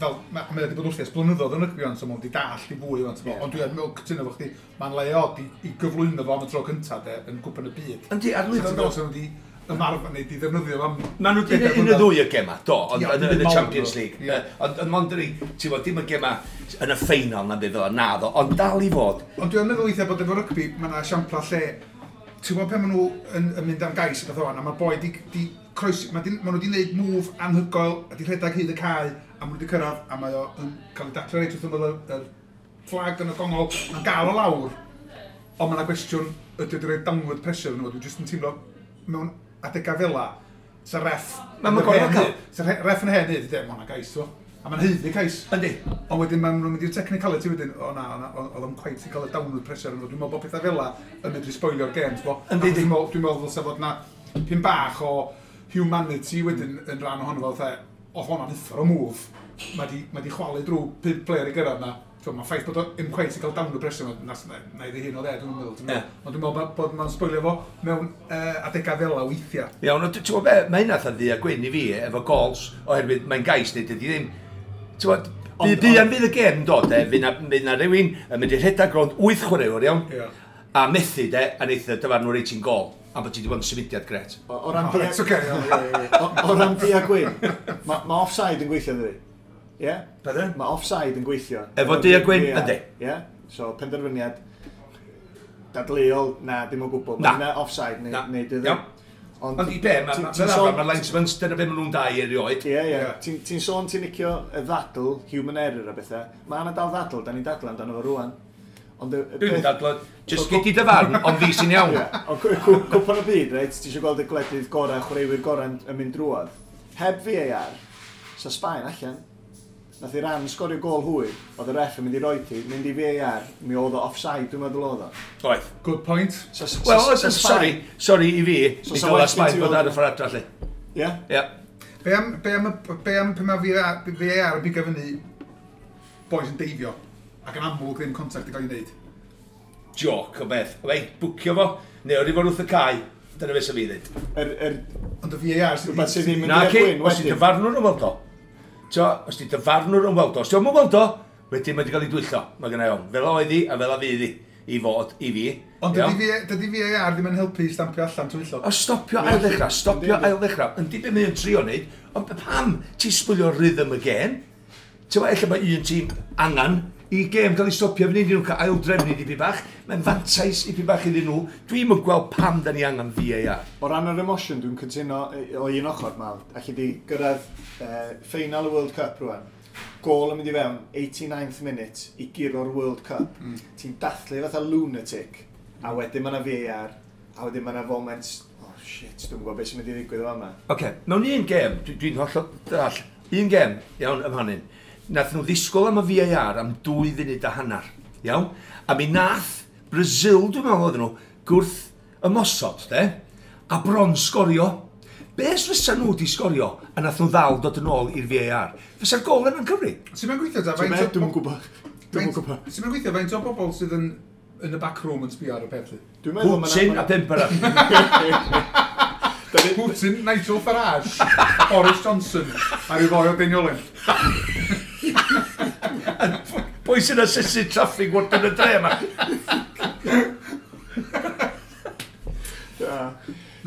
fel, mae o wedi bod wrthi ers blynyddoedd yn rygbi ond, so mae o wedi dallt i fwy ond,
Ie.
ond dwi'n meddwl cytuno efo chdi, mae'n le od i gyflwyno fo am y tro cyntaf de, yn Cwpan y Byd.
Yndi, ar
Ti'n
lwyfan
meddwl sy'n wedi ymarfer neu di ddefnyddio fo am
Maen nhw wedi
bedair
un y
blynedd.
ddwy y gema, do, ond
Ie,
yn y
dim mawr,
Champions
do.
League.
Ie.
Ond mond yr ti'n bod, dim y gema yn y ffeinal na beth fel na ddo, ond dal i fod.
Ond dwi'n meddwl weithiau bod efo rygbi, mae yna esiampla lle, ti'n gwybod pan maen nhw yn mynd am gais a beth o'n, a mae boi di croesi, ma nhw di wneud move anhygoel, a di rhedeg hyd y cae, a maen nhw di cyrraedd, a mae o yn cael ei daclo reit wrth ymyl y fflag yn y gongol, mae'n gael o lawr, ond mae yna gwestiwn, ydy o wedi rhoi downward pressure yn nhw, dwi'n jyst yn teimlo mewn adegau fel la, sa ref...
Ma' ma'n gorfod cael.
Sa ref yn hen hyd, mae hwnna'n gais, o. A mae'n haeddu cais.
Yndi.
Ond wedyn maen nhw'n mynd i'r technicality wedyn, o na, o na, oedd o'n quite i cael y downward pressure yn. Dwi'n meddwl bod pethau fel 'la yn medru spoilio'r gêm, ti'n bo?
Yndi, yndi.
Dwi'n meddwl ddylse fod na pyn bach o humanity wedyn yn rhan ohono fo, fatha, oedd hwnna'n uffar o move. Mae di chwalu drwy pump player i gyrraedd na. Mae ffaith bod o ddim quite i cael downward pressure, na i hyn o dde, dwi'n meddwl. Dwi'n meddwl. Ond dwi'n meddwl bod mae'n spoilio fo mewn adegau fel 'la weithiau.
Iawn, ond ti'n gwybod be, mae hynna fatha ddu a gwyn i fi efo gols, oherwydd mae'n gais neu dydy ddim. Ti'n gwybod, buan fydd y gêm yn dod, e, fydd na rhywun yn mynd i rhedeg rownd wyth chwaraewr, iawn,
Ie.
a methu, de, a neith y dyfarnwr reit ti'n gol, a bod ti wedi bod yn symudiad gret.
O ran
O,
du
reit, ocê, iawn, ie, ie, ie.
o ran du a gwyn, ma offside yn gweithio, dydi? Ie?
Pardon?
Mae offside yn gweithio.
Efo du a gwyn,
Ie.
yndi.
Ie? So, penderfyniad dadleuol, na, dim o gwbl.
Na.
Mae hynna offside neu,
Na.
neu dydy.
Iawn. Ond i be,
ti'n
fel arfer,
sôn-
mae'r linesmen, dyna be maen nhw'n dau erioed.
Ie.
Ie.
Ti'n sôn ti'n licio y ddadl, human error a bethau. Mae yna dal ddadl, da ni'n dadl amdano fo rwan. Ond y
Dwi'n
peth-
dadlo, just gei di dy farn, ond fi sy'n iawn.
Ie, ond cwpan y byd, reit, ti eisiau gweld y gwledydd gorau, chwaraewyr gorau yn mynd drwodd. Heb VAR, sa Sbaen allan. Nath Iran sgorio gol hwyr, oedd y ref yn mynd i roi ti, mynd i VAR, mi oedd o offside, dwi'n meddwl oedd o.
Oedd.
Good point.
Wel,
Sa
sorry, sorry i fi,
So
mi
sa
dyla
well gen
Sbaen
ti
bod
weld-
ar y ffordd adra, lle.
Ie?
Ie.
Be am pan mae VAR yn bigo fyny boys yn deifio ac yn amlwg ddim contact yn cael ei wneud.
Joc o beth. Wei, bwcio fo, neu o'r i fod wrth y cae, dyna beth sy'n fi ddweud.
Ond y VAR sydd
Rhywbeth sydd ddim yn
Na,
du a
ci,
gwyn
os ti
wedyn.
dyfarnwr yn weld o. T'o, os ti dyfarnwr yn weld o, os ti o'm yn weld o, wedyn mae wedi cael ei dwyllo. Mae gynna i ofn. Fel oedd hi a fel a fydd hi i fod i fi.
Ond
Iawn?
dydy VAR ddim yn helpu i stampio allan twyllo.
O stopio ail ddechrau, stopio
Yndi, yndi.
ail ddechrau. Yndi be mae'n trio wneud, ond pam ti'n sbwylio rhythm y gêm? Ti'n gwybod, ella mae un tîm angan i gêm gael ei stopio fyny, iddyn nhw cael aildrefnu dipyn bach. Mae'n fantais i bach iddyn nhw. Dwi'm yn gweld pam da ni angen VAR.
O ran yr emosiwn, dwi'n cytuno o un ochr, Mal. Alli di gyrraedd final y World Cup rwan. Gôl yn mynd i fewn, 89th minute, i guro'r World Cup. Ti'n dathlu fatha lunatic, a wedyn mae yna VAR, a wedyn mae yna foment, oh shit, dwi'n gwybod beth sy'n mynd i ddigwydd o fama.
Oce, okay, mewn un gêm, dwi'n hollol dall, un gêm, iawn, ym hynny, nath nhw ddisgwyl am y VAR am 2 funud a hanner, iawn? A mi nath Brazil, dwi'n meddwl oedden nhw, gwrth ymosod, de, a bron sgorio. Be os fysa nhw di sgorio a nath nhw ddal dod yn ôl i'r VAR? Fysa'r gol yna'n cyfri?
Sy'n mae'n gweithio ta?
Ti'n meddwl, dwi'm yn gwybod. Dwi'm yn gwybod.
Sy'n mae'n gweithio faint o bobl sydd yn y back room yn sbio ar y peth, lly?
Dwi'n meddwl ma' 'na-
Putin a pump arall.
Putin, Nigel Farage, Boris Johnson, a rhyw foi o Deiniolen.
Pwy sy'n asesu traffig wrth yn y dre yma?
Ie.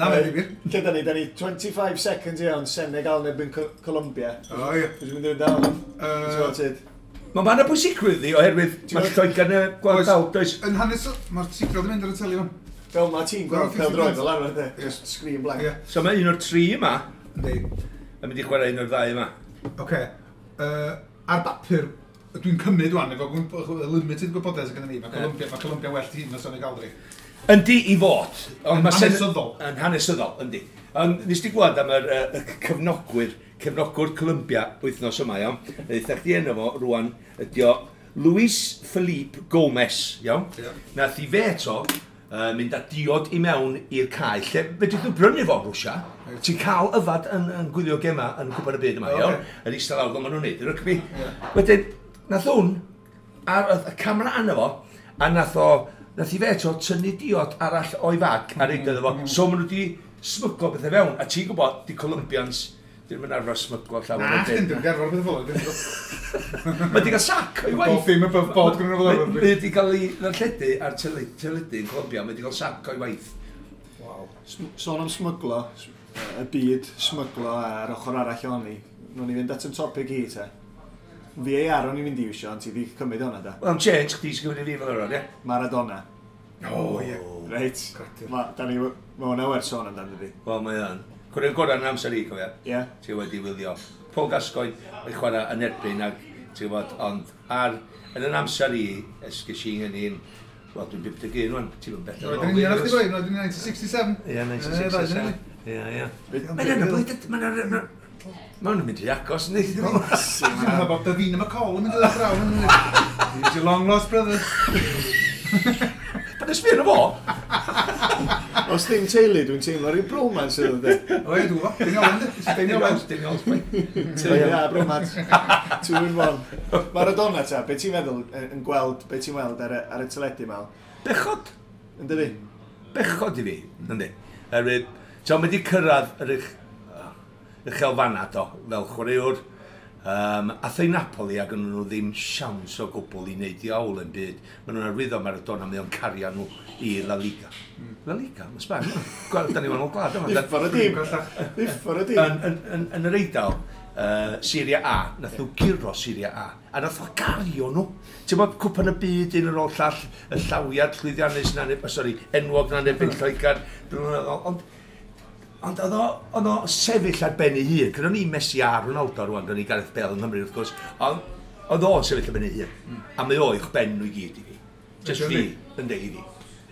Na, mae'n ddifyr.
Lle da ni? Da ni 25 seconds iawn, Senegal yn erbyn Colombia.
O, ie.
Dwi'n mynd i fynd down. Ti'n gwybod?
Mae ma yna bwysigrwydd i oherwydd mae Lloegr yn gweld
Oes.
dal, does?
Yn hanes, mae'r sicrwydd yn mynd ar y teli fan.
Fel ma ti'n gweld
Wel,
pêl-droed
50
fel arfer, de.
Ie.
Just screen blank.
Ie.
So mae un o'r tri yma
Yndi.
yn mynd i chwarae un o'r ddau yma.
Oce. Ar bapur, dwi'n cymryd wan, efo limited gwybodaeth sydd gennym ni, mae Colombia, mae Colombia well tîm na Senegal, dri.
Yndi i fod. Ond
Yn
ma' Sen-
hanesyddol.
Yn hanesyddol, yndi. Ond nes di gweld am y cefnogwyr, cefnogwr Colombia wythnos yma, iawn. Eitha chdi enw fo rwan, ydi o Luis Felipe Gomez, iawn.
Ie.
Nath i fe eto mynd â diod i mewn i'r cae, lle fedrith nhw brynu fo yn Rwsia. Ti'n cael yfad yn gwylio gema yn Cwpan y Byd yma,
O,
iawn.
ocê.
Yn eistedd lawr fel maen nhw'n neud, y rygbi. Wedyn, nath hwn, ar y camera arno fo, a nath i fe eto tynnu diod arall o'i fag a reid iddo fo. So maen nhw wedi smyglo bethau fewn, a ti'n gwybod, di Colombians, ddim yn arfer smyglo llawer
Na,
o
chdi,
beth.
dwi'n gerfod beth fel yna.
Mae wedi cael sac o'i waith.
Bob dim above board gyda nhw fel arfer.
Mae wedi cael ei ddarlledu ar teledu yn Colombia, mae wedi cael sac o'i waith.
Waw.
Sôn am smyglo, y byd smyglo a'r ochr arall ohoni. Nw'n ni fynd at yn topic i, te. VAR o'n i'n mynd i iwsio, ond ti di cymryd hwnna, da.
Wel, am change, chdi sy'n gymryd i fi fel arfer, ie?
Maradona.
O, ie.
Reit.
Creadur.
Ma, da ni, ma hwnna werth sôn amdano, dydi.
Wel, mae o'n. Cwrdd gorau yn amser i, cofia.
Ie.
Ti wedi wylio. Paul Gascoigne yn chwarae yn erbyn ac, ti'n gwybod, ond ar, yn yn amser i, ges i yn un, wel, dwi'n 51 rwan, ti'n mynd bell.
Roedd yn union o'ch ti boi, roedd yn 1967.
Ie, 1967. Ie, ie.
Be-
Mae'n yna, mae'n yna, Mae nhw'n mynd i agos, yndi?
Dwi'n meddwl bod Davina McCall yn mynd i ddod draw. He's your long lost brother.
Pan ysbio na fo?
Os ddim teulu, dwi'n teimlo rhyw bromance iddo, de.
O ie, dwi'n gwybod. Daniel Owen, Daniel Owen.
Daniel Owen.
Teulu a bromance. Two in one. Maradona ta, be ti'n meddwl yn gweld, be ti'n weld ar y teledu mal?
Bechod.
Yn dydi?
Bechod i fi, yndi. Erwydd, ti'n mynd i cyrraedd yr uchelfanna do, fel chwaraewr. Ath ei Napoli ac yn nhw ddim siawns o gwbl i wneud iawl yn byd. Maen nhw'n arwyddo Maradona, mae o'n cario nhw i La Liga. La Liga, mae Sbaen. Gweld, da ni wahanol gwlad yma.
Uffar y dîm. Uffar y dîm.
Yn yr Eidal, Serie A, nath nhw guro Serie A, a nath o gario nhw. Ti'n bod cwpan y byd un ar ôl llall, y llawiad llwyddiannus na, sori, enwog na nebyn Lloegr, ond oedd o sefyll ar ben ei hun. Cynnon ni Messi a Ronaldo rwan, gynnon ni Gareth Bale yng Nghymru wrth gwrs, ond oedd o'n sefyll ar ben ei hun. A mae o i'ch ben nhw i gyd i fi. Just fi, yndi, i fi.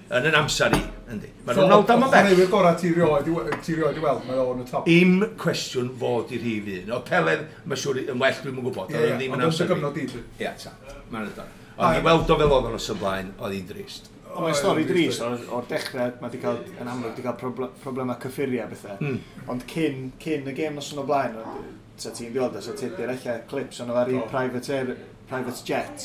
Yn yn amser i, yndi. Mae Ronaldo ma'n bell.
Chwaraewyr gorau ti rioed i weld, mae o'n y top.
Im cwestiwn fod i'r rhif un. O Pele, mae siŵr yn well, dwi'm yn gwybod.
Ie, ond yn dy gyfnod i.
Ie, ta. Mae'n ydw. Ond i weld o fel oedd o'n os ymlaen, oedd hi'n drist.
Ond mae'n stori drist o'r dechrau, mae wedi cael, yn amlwg, wedi cael problemau cyffuriau a bethau. Ond cyn y gêm nos yn o blaen, sa ti'n gweld, sa ti'n dweud ella clips ond ar ei private jet,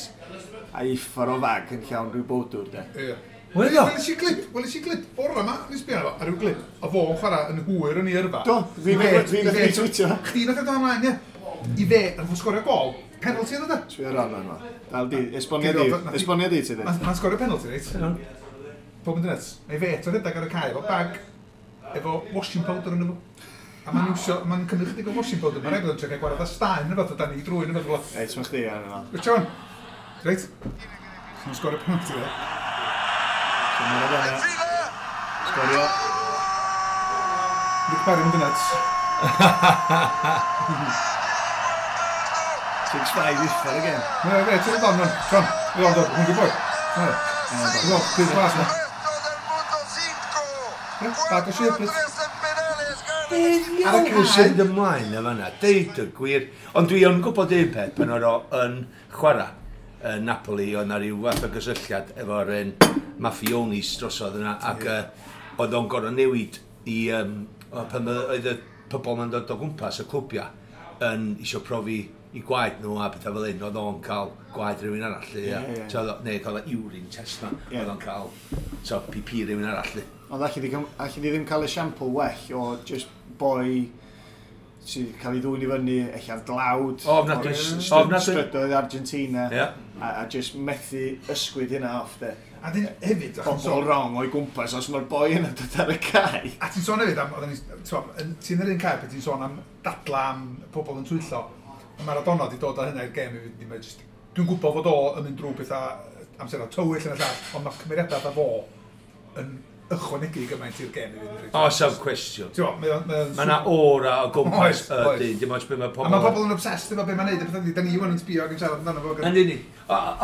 a uffar o fag yn llawn rhyw bowdwr, de.
Ie. Weles i glip bore yma, nes sbio arno fo, ar ryw glip, o fo'n chwarae yn hwyr yn ei yrfa.
Do, fi nath i tweetio.
Chdi nath i dod ymlaen, ie. I fe, nath o sgorio gol, penalty oedd o, de.
Sbio ar hwnna yma. Dal di, esbonia di ti di.
Mae'n sgorio penalty, reit? Pob yn dynets. Mae fe eto rhedeg ar y cae efo bag, efo washing powder yn efo. A mae'n iwsio, mae'n cymryd chydig o washing powder, mae'n rhaid bod yn trio cael gwared â staen yn efo, dan i drwy'n efo.
Reit, mae'n chdi ar yma.
Reit, John. Reit. Mae'n sgorio penalty, de.
So Maradona. Sgorio.
Nick Barry mynd yn nuts.
6-5 uffar again.
Ie, ie, ti'n dod on, John. Dwi'n dod, hwn dwi'n boi. Dwi'n dwi'n glas na. Bag o sherbet.
Ar y cae sydd ymlaen y fanna, deud y gwir. Ond dwi yn gwybod un peth pan oedd o yn chwarae yn Napoli, oedd na ryw fath o gysylltiad efo'r maffionis drosodd yna, ac oedd o'n gorfod newid i, pan oedd y pobl ma'n dod o gwmpas y clwbia yn isio profi i gwaed nhw a pethau fel un, oedd o'n cael gwaed rhywun arall, neu cael urine test na, oedd o'n cael PP rhywun arall.
Ond alli di ddim cael esiampl well o just boi sydd cael ei ddwyn i fyny, ella'n dlawd, strydoedd Argentina, a just methu ysgwyd hynna off, de.
A dyn hefyd...
Pobl wrong o'i gwmpas os mae'r boi yna dod ar y cae.
A ti'n sôn hefyd am, ti'n yr un cae, pe ti'n sôn am dadla am pobl yn twyllo, a Maradona wedi dod â hynna i'r gêm, dwi'n gwybod fod o yn mynd drwy pethau amserau tywyll yn y llall, ond mae cymeriadau fatha fo yn ychwanegu gymaint i'r gêm i fynd.
O, saf cwestiwn. Mae yna aura o gwmpas y dyn, dim ots be mae pobl...
A mae pobl yn obsessed efo be mae'n neud, a pethau, da ni wan yn sbio ac yn siarad amdano fo.
Yn unig.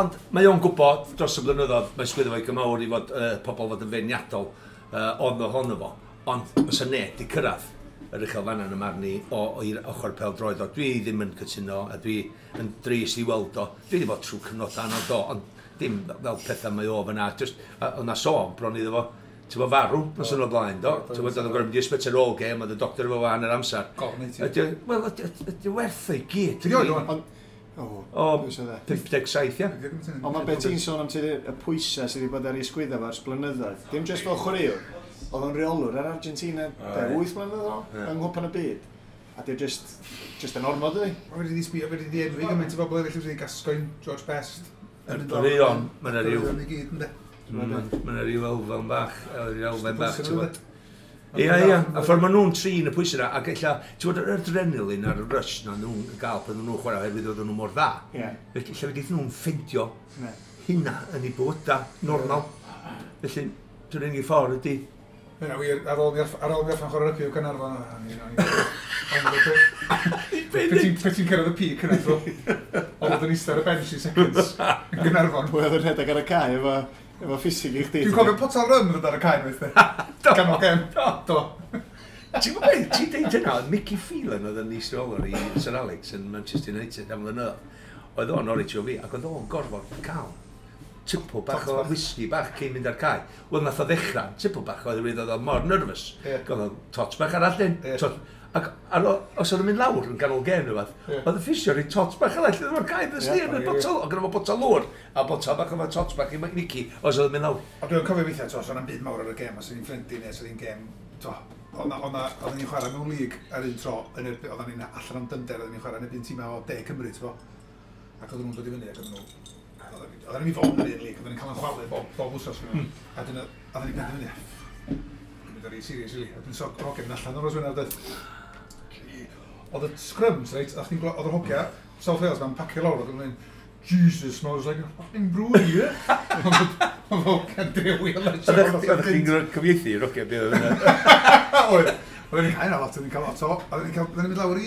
Ond mae o'n gwybod dros y blynyddoedd, mae sgwyddo fo'i gymawr i fod pobl fod yn feirniadol ond ohono fo, ond os y neb di cyrraedd yr uchelfanna yn y marn i o'r ochr pêl-droed o. Dwi ddim yn cytuno a dwi yn drist i weld o. Dwi wedi bod trwy cyfnod anodd do, ond dim fel pethau mae o fyna. Just, oedd na sôn bron iddo fo, ti'n bod farw nos yn o blaen, do? Ti'n bod oedd yn gorfod mynd i ysbyty ar ôl gêm, oedd y doctor efo fan yr amser. Wel, ydy werth o'i gyd.
Ti'n oed o'n?
O, 57, ia.
Ond mae beth ti'n sôn am y pwysau sydd wedi bod ar ei sgwydda fo ers blynyddoedd. Dim jyst fel chwaraewr, oedd o'n reolwr ar Argentina 8 mlynedd yn ôl, yng Nghwpan y Byd. A di just yn ormod, ydi?
Mae wedi sbio, wedi enwi gymaint o bobl eraill wedi Gascoigne, George Best.
Yr un, mae yna ryw. Mae yna ryw elfen bach, ti'n bod. Ia, ia, a ffordd maen nhw'n trin y pwysau yna, ac ella, ti'n bod, yr adrenalin a'r rush na nhw'n gael pan nhw'n chwarae oherwydd oedden nhw mor dda. Felly, lle wedi nhw'n ffeindio hynna yn eu bywydau normal. Felly, dwi'n unig ffordd ydy.
Yna, wir, ar ôl mi orffen chwarae rygbi o Gaernarfon, Pe ti'n cyrraedd y peak yna, oedd yn eistedd ar y bench i seconds yn Gaernarfon.
Pwy oedd yn rhedeg ar y cae efo ffisig i chdi?
Dwi'n cofio potel rym yn dod ar y cae, weithio. Ganol gem. Do.
Ti'n gwybod beth, ti'n deud hynna, oedd Mickey Phelan oedd yn is-reolwr i Sir Alex yn Manchester United am flynyddoedd. Oedd o'n Norwich o fi, ac oedd o'n gorfod cael tipl bach o whisky bach cyn mynd ar cae. Wel, nath o ddechrau, tipl bach oedd oedd o mor nervous. Gael o tot bach arall dyn. Tot, ac ar, os oedd o'n mynd lawr yn ganol gêm neu beth, oedd y ffisio rhoi tot bach arall iddo fo'r cae, ddys ni, yn y botol, oedd gynno fo botol lwr, a botol bach efo tot bach i Mickey, os oedd o'n mynd lawr.
Ond dwi'n cofio weithiau, to, os o'n byd mawr ar y gêm, os o'n i'n ffrind neu os o'n i'n gêm, to, oedden ni'n chwarae mewn lig ar un tro, yn erbyn, oedden ni'n allan am dynder, oedden ni'n chwarae yn erbyn tîmau o De Cymru, ti'n bo. Ac oedden nhw'n dod i fyny, ac oedden nhw, oedden ni'n fod yn yr un lig, oedden ni'n cael yn chwalu bob wsos. A dyn, oedden ni'n penderfynu, dwi'n mynd ar ei serious, really. A dwi'n so, hogia mynd allan o'r nos dweud, oedd y scrums, reit, oedd yr hogia, South Wales, ma'n pacio lawr, oedd nhw'n mynd, Jesus, smells like a fucking brewery here. Oedd hogia'n drewi o
Oeddech chi'n cyfieithu i'r hogia beth oedd yna?
Oedd. Oedden ni'n cael lot, oedden ni'n cael lot o, oedden ni'n mynd lawr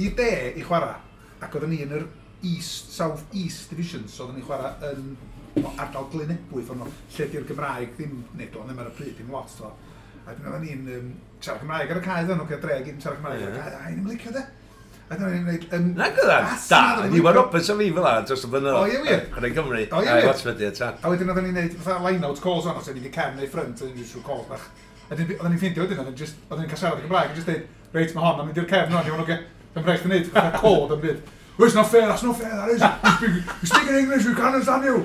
i de i chwarae, ac oedden ni yn yr East, South East Division, so oedden ni'n chwarae yn ardal Glynebwy, ffordd nhw, lle di'r Gymraeg ddim, neu do'n ddim ar y pryd, dim lot, to. A dyn oedden ni'n siarad Cymraeg ar y cae, oedden nhw'n dre gyd yn siarad Cymraeg ar y cae, a i'n licio de. A dyna ni'n gwneud...
Na gyda, da, Iwan Roberts a fi fel 'na, dros y blynyddoedd.
O, ie, wir.
Chwarae Cymru,
O, ie,
a
wir.
Watford, ie, ta.
A wedyn oedden ni'n gwneud fatha line-out calls o'n, os oedden ni'n cefn neu front, oedden ni'n just rhyw calls bach. A wedyn oedden ni'n ffeindio wedyn, oedden ni'n cael siarad yn Gymraeg, a just dweud, reit, mae hon, mae'n mynd i'r cefn o'n, iawn, oce. Dwi'n rhaid i wneud, fatha cod yn byd. Well, it's not fair, that's not fair, that is. You speak in English, we can't understand you.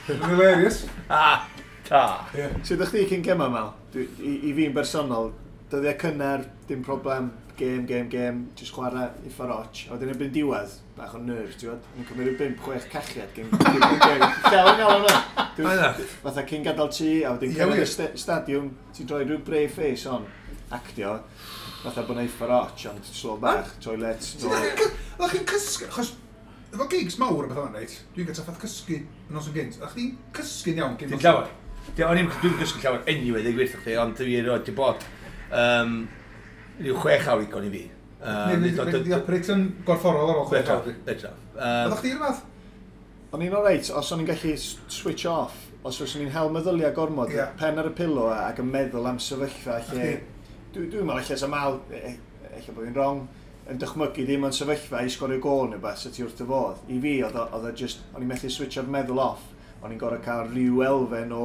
It's hilarious.
Ah, ta.
Yeah.
Sut ydych chi cyn gema, Mel? I fi'n bersonol, dyddiau cynnar, dim problem, gêm, gêm, gêm, jyst chwarae i ffaroch. A wedyn erbyn diwedd, bach o nerves, ti'n gwybod? Yn cymryd rhyw 5-6 cachiad gyn gêm. Llaw yn gael yna.
Oedd
Fatha cyn gadael tŷ, a wedyn
Ie,
cyrraedd y
wir.
stadiwm, ti'n droi rhyw brave face on, actio, fatha bod na i ffaroch, ond slo bach, toilet,
So, Oeddech chi'n cysgu, achos efo gigs mawr a beth o'n reit, dwi'n gael trafferth cysgu yn nos yn gynt. Oeddech chi'n cysgu'n iawn cyn
Dim llawer. O'n i'n dwi'n gysgu llawer anyway, dweud gwirth chdi, ond dwi erioed di bod rhyw 6 awr igon i fi.
Neu di operate yn gorfforol ar ôl 6 awr.
Fedra.
Oeddech chdi'r fath?
O'n i'n oreit, os o'n i'n gallu switch off, os o'n i'n hel meddyliau gormod, pen ar y pillow ac yn meddwl am sefyllfa lle... Dwi'n meddwl lle sa Mal, ella bod fi'n wrong, yn dychmygu ddim yn sefyllfa i sgorio gôl neu beth, sa ti wrth dy fodd. I fi, oedd o just, o'n i'n methu switcho'r meddwl off, o'n i'n gorfod cael rhyw elfen o,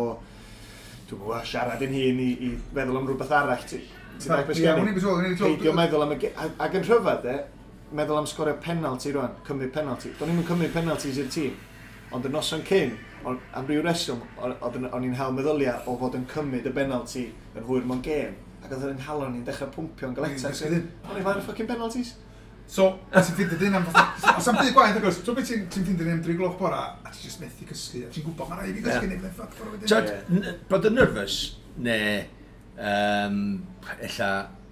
dwi'n gwybod, siarad yn hun i feddwl am rhywbeth arall. Ti'n dweud beth
Ie,
sgen i?
o'n i'n beth o'n i'n
Peidio meddwl am y... Ac yn rhyfedd, e, meddwl am sgorio penalty rwan, cymryd penalty. Do'n i'm yn cymryd penalties i'r tîm, ond y noson cyn, am ryw reswm, o'n i'n hel meddyliau o fod yn cymryd y penalty yn hwyr mewn gêm. Ac oedd yn nghalon i'n dechrau pwmpio'n galetach.
O'n i'n
O'n i'n fain fucking penalties.
So, ti'n ffeindio dyn am fatha... Os am byd gwaith, agos, so beth ti'n ffeindio dyn am 3 gloch bora, a ti'n just methu cysgu, a ti'n gwybod, mae'n rhaid i fi gysgu, neu byddai'n fuck bora wedyn.
Tyd, bod yn nervous, neu ella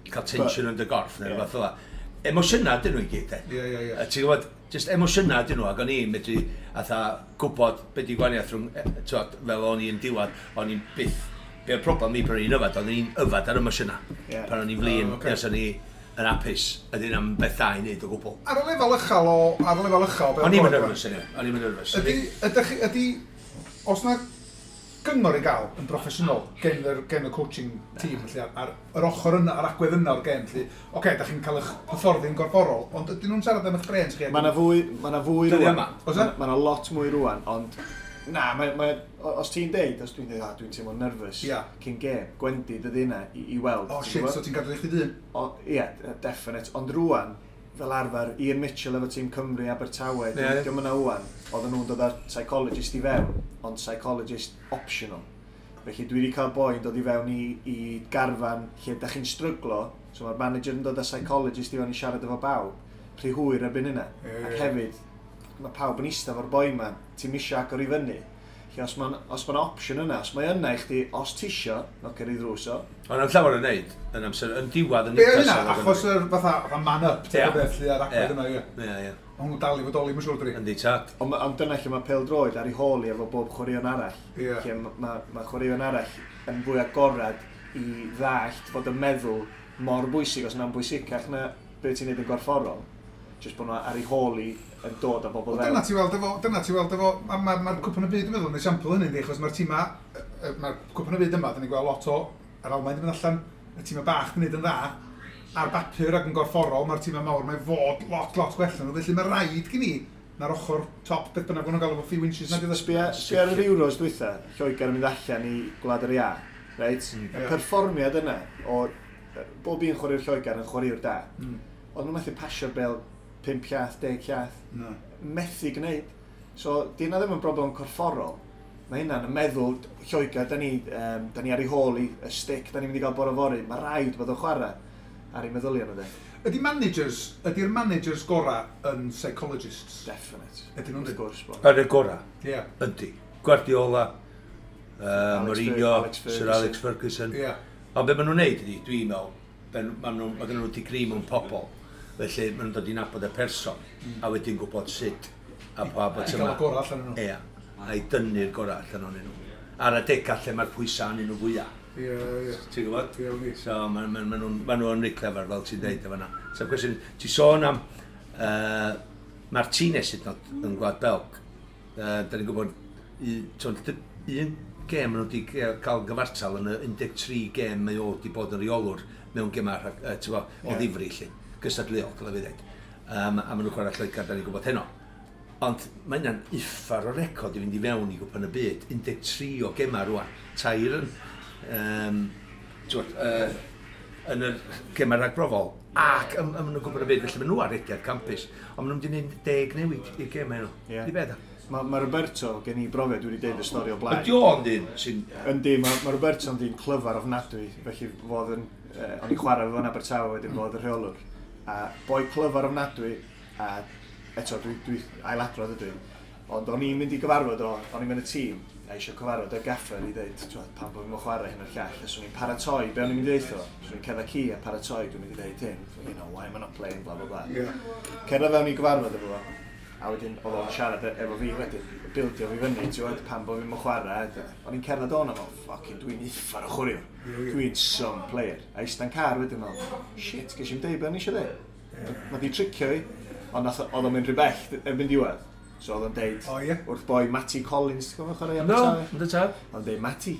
cael tension yn dy gorff, neu rhywbeth fel 'na. Emosiynau dyn nhw i gyd, de.
Ie, ie, ie.
A ti'n gwybod, just emosiynau dyn nhw, ac o'n i'n medru atha gwybod beth di gwahaniaeth rhwng, t'wod, fel o'n i'n diwedd, o'n i'n byth, be oedd problem fi pan o'n i'n yfad, o'n i'n yfad ar emosiynau. Pan o'n i'n flin,
Oh, ocê.
nes o'n i yn hapus, a dyn am beth da i wneud o gwbl.
Ar y lefel uchel o... Ar y lefel uchel...
O'n i'm yn nervous, anyway. O'n i'm yn nervous.
Ydy, os na gyngor i gael yn broffesiynol gen y coaching team, felly, ar yr ochr yna, ar agwedd yna o'r gêm, felly, oce, da chi'n cael eich hyfforddi'n gorfforol, ond ydyn nhw'n siarad am eich brains chi?
Mae yna fwy, ma' 'na fwy
Dyddiau
rwan.
yma.
Oes e?
Mae yna lot mwy rwan, ond na, os ti'n deud, os dwi'n deud, dwi'n teimlo'n nervous cyn gêm, gwendid ydy hynna i weld.
O,
ti'n
shit,
gwbod?
so ti'n gadw i chdi dyn?
Ie, definite. Ond rwan, fel arfer, Ian Mitchell efo tîm Cymru, Abertawe, diolch yna wan, oedden nhw'n dod â'r psychologist i fewn, ond psychologist optional. Felly dwi wedi cael boi'n dod i fewn i garfan lle da chi'n stryglo, so mae'r manager yn dod â psychologist i fewn i siarad efo bawb, rhy hwyr erbyn hynna. Ac hefyd, mae pawb yn eistedd efo'r boi ma, ti'n misio agor i fyny. Lle os mae'n os ma opsiwn yna, os mae yna i chdi, os ti isio, nocio i ddrws o.
Ond am llawer yn neud, yn amser, yn diwedd yn
Be oedd hynna?
Newcastle,
Achos yr fatha man up, ti'n beth, lle, ar agwedd yna, ie.
Ie, ie.
Ond nhw'n dal i fodoli, mae'n siŵr, dwi.
Yndi, tad.
Ond dyna lle mae pêl-droed ar ei hôl i efo bob chwaraeon arall. Lle mae chwaraeon arall yn fwy agorad i ddallt fod y meddwl mor bwysig, os na'n bwysicach na beth ti'n neud yn gorfforol. Jyst bod nhw ar ei hôl i yn dod â bobl
Wel,
fewn.
dyna ti weld efo, mae'r Cwpan y Byd, dwi'n meddwl, yn esiampl hynny, achos mae'r tîma, mae'r Cwpan y Byd yma, dyn ni'n gweld lot o, yr Almaen yn mynd allan, y tîmau bach yn gwneud yn dda, ar bapur ac yn gorfforol, mae'r tîmau mawr, mae fod lot, lot gwell na nhw. Felly mae rhaid gen i na'r ochr top, beth bynnag maen nhw'n gael efo few inches na.
Sbia ar yr Euros dwytha, Lloegr yn mynd allan i Gwlad yr Iâ, reit? Y perfformiad yna o bob un chwaraewr Lloegr yn chwaraewr da. Ond nhw'n methu pasio'r bel 5 llath, 10 llath.
No.
Methu gwneud. So, di hynna ddim yn broblem corfforol. Mae hynna'n yn meddwl, Lloegr, da ni ar ei hôl i y stick, da ni'n mynd i gael bore fory. Mae rhaid bod o'n chwarae ar ei meddylion nhw de.
Ydy'r managers gorau yn psychologists?
Definite.
Ydyn nhw'n
Wrth gwrs bod.
Ar y gorau?
Ie.
Ydy. Guardiola, Mourinho,
Alex Ferguson.
Sir Alex Ferguson.
Ie.
Ond be maen nhw'n neud ydy, dwi'n meddwl, mae gen nhw digri mewn pobl. Felly maen nhw'n dod i nabod y person, a wedyn gwybod sut a pa bod
I gael y gorau allan nhw.
Ie, a i dynnu'r gorau allan ohonyn nhw. Ar adegau lle mae'r pwysau arnyn nhw fwyaf.
Ie, ie.
Ti'n gwybod?
Ie, wir.
So, ma nhw'n reit clefer, fel ti'n deud efo yna. So, cwestiwn, ti sôn am Martinez hyd yn oed yn Gwlad Belg. Da ni'n gwybod, un gêm maen nhw wedi cael gyfartal yn y 13 gêm mae o wedi bod yn reolwr mewn gemau o ddifri, lle, gystadleuol, dylai fi ddeud. A maen nhw'n chwarae Lloegr, da ni'n gwybod heno. Ond mae hynna'n uffar o record i fynd i fewn i Gwpan y Byd. 13 o gemau rwan. Tair yn yn yr gemau ragbrofol ac ym nhw'n Gwpan y Byd, felly maen nhw ar rediad campus. Ond maen nhw'n mynd i wneud 10 newid i'r gemau nhw.
Ie.
Di beth?
Mae Roberto, gen i brofiad, dwi wedi deud y stori o blaen.
Ydy o'n dyn sy'n...
Yndi, mae Roberto'n ddyn clyfar ofnadwy, felly fodd yn... o'n i'n chwarae fo'n Abertawe wedyn fodd y rheolwr. A boi clyfar ofnadwy, a eto dwi ailadrodd ydw i. Ond o'n i'n mynd i gyfarfod o, o'n i'n mynd y tîm, a eisiau cyfarfod y gaffer i ddeud, pam bod fi'n chwarae hyn o'r llall, a swn i'n paratoi, be o'n i'n mynd i ddeud o? Swn i'n cerdded ci a paratoi, dwi'n mynd i ddeud hyn, you know, why am I not playing, bla bla bla.
Yeah.
Cerdded fewn i gyfarfod efo fo, a wedyn oedd o'n siarad efo fi wedyn, bildio fi fyny, ti'n gwybod, pam bod fi'n chwarae. O'n i'n cerdded o'n am, fucking, dwi'n uffar o chwaraewr, dwi'n some player. A ista'n car wedyn, fel, shit, ges i'n deud be o'n i eisiau deud. Mae di tricio fi, ond oedd o'n mynd rhy bell erbyn diwedd. So oedd o'n deud, wrth boi Matty Collins, ti'n gwybod chwarae Abertawe?
No, ynddo tad.
Oedd o'n deud, Matty,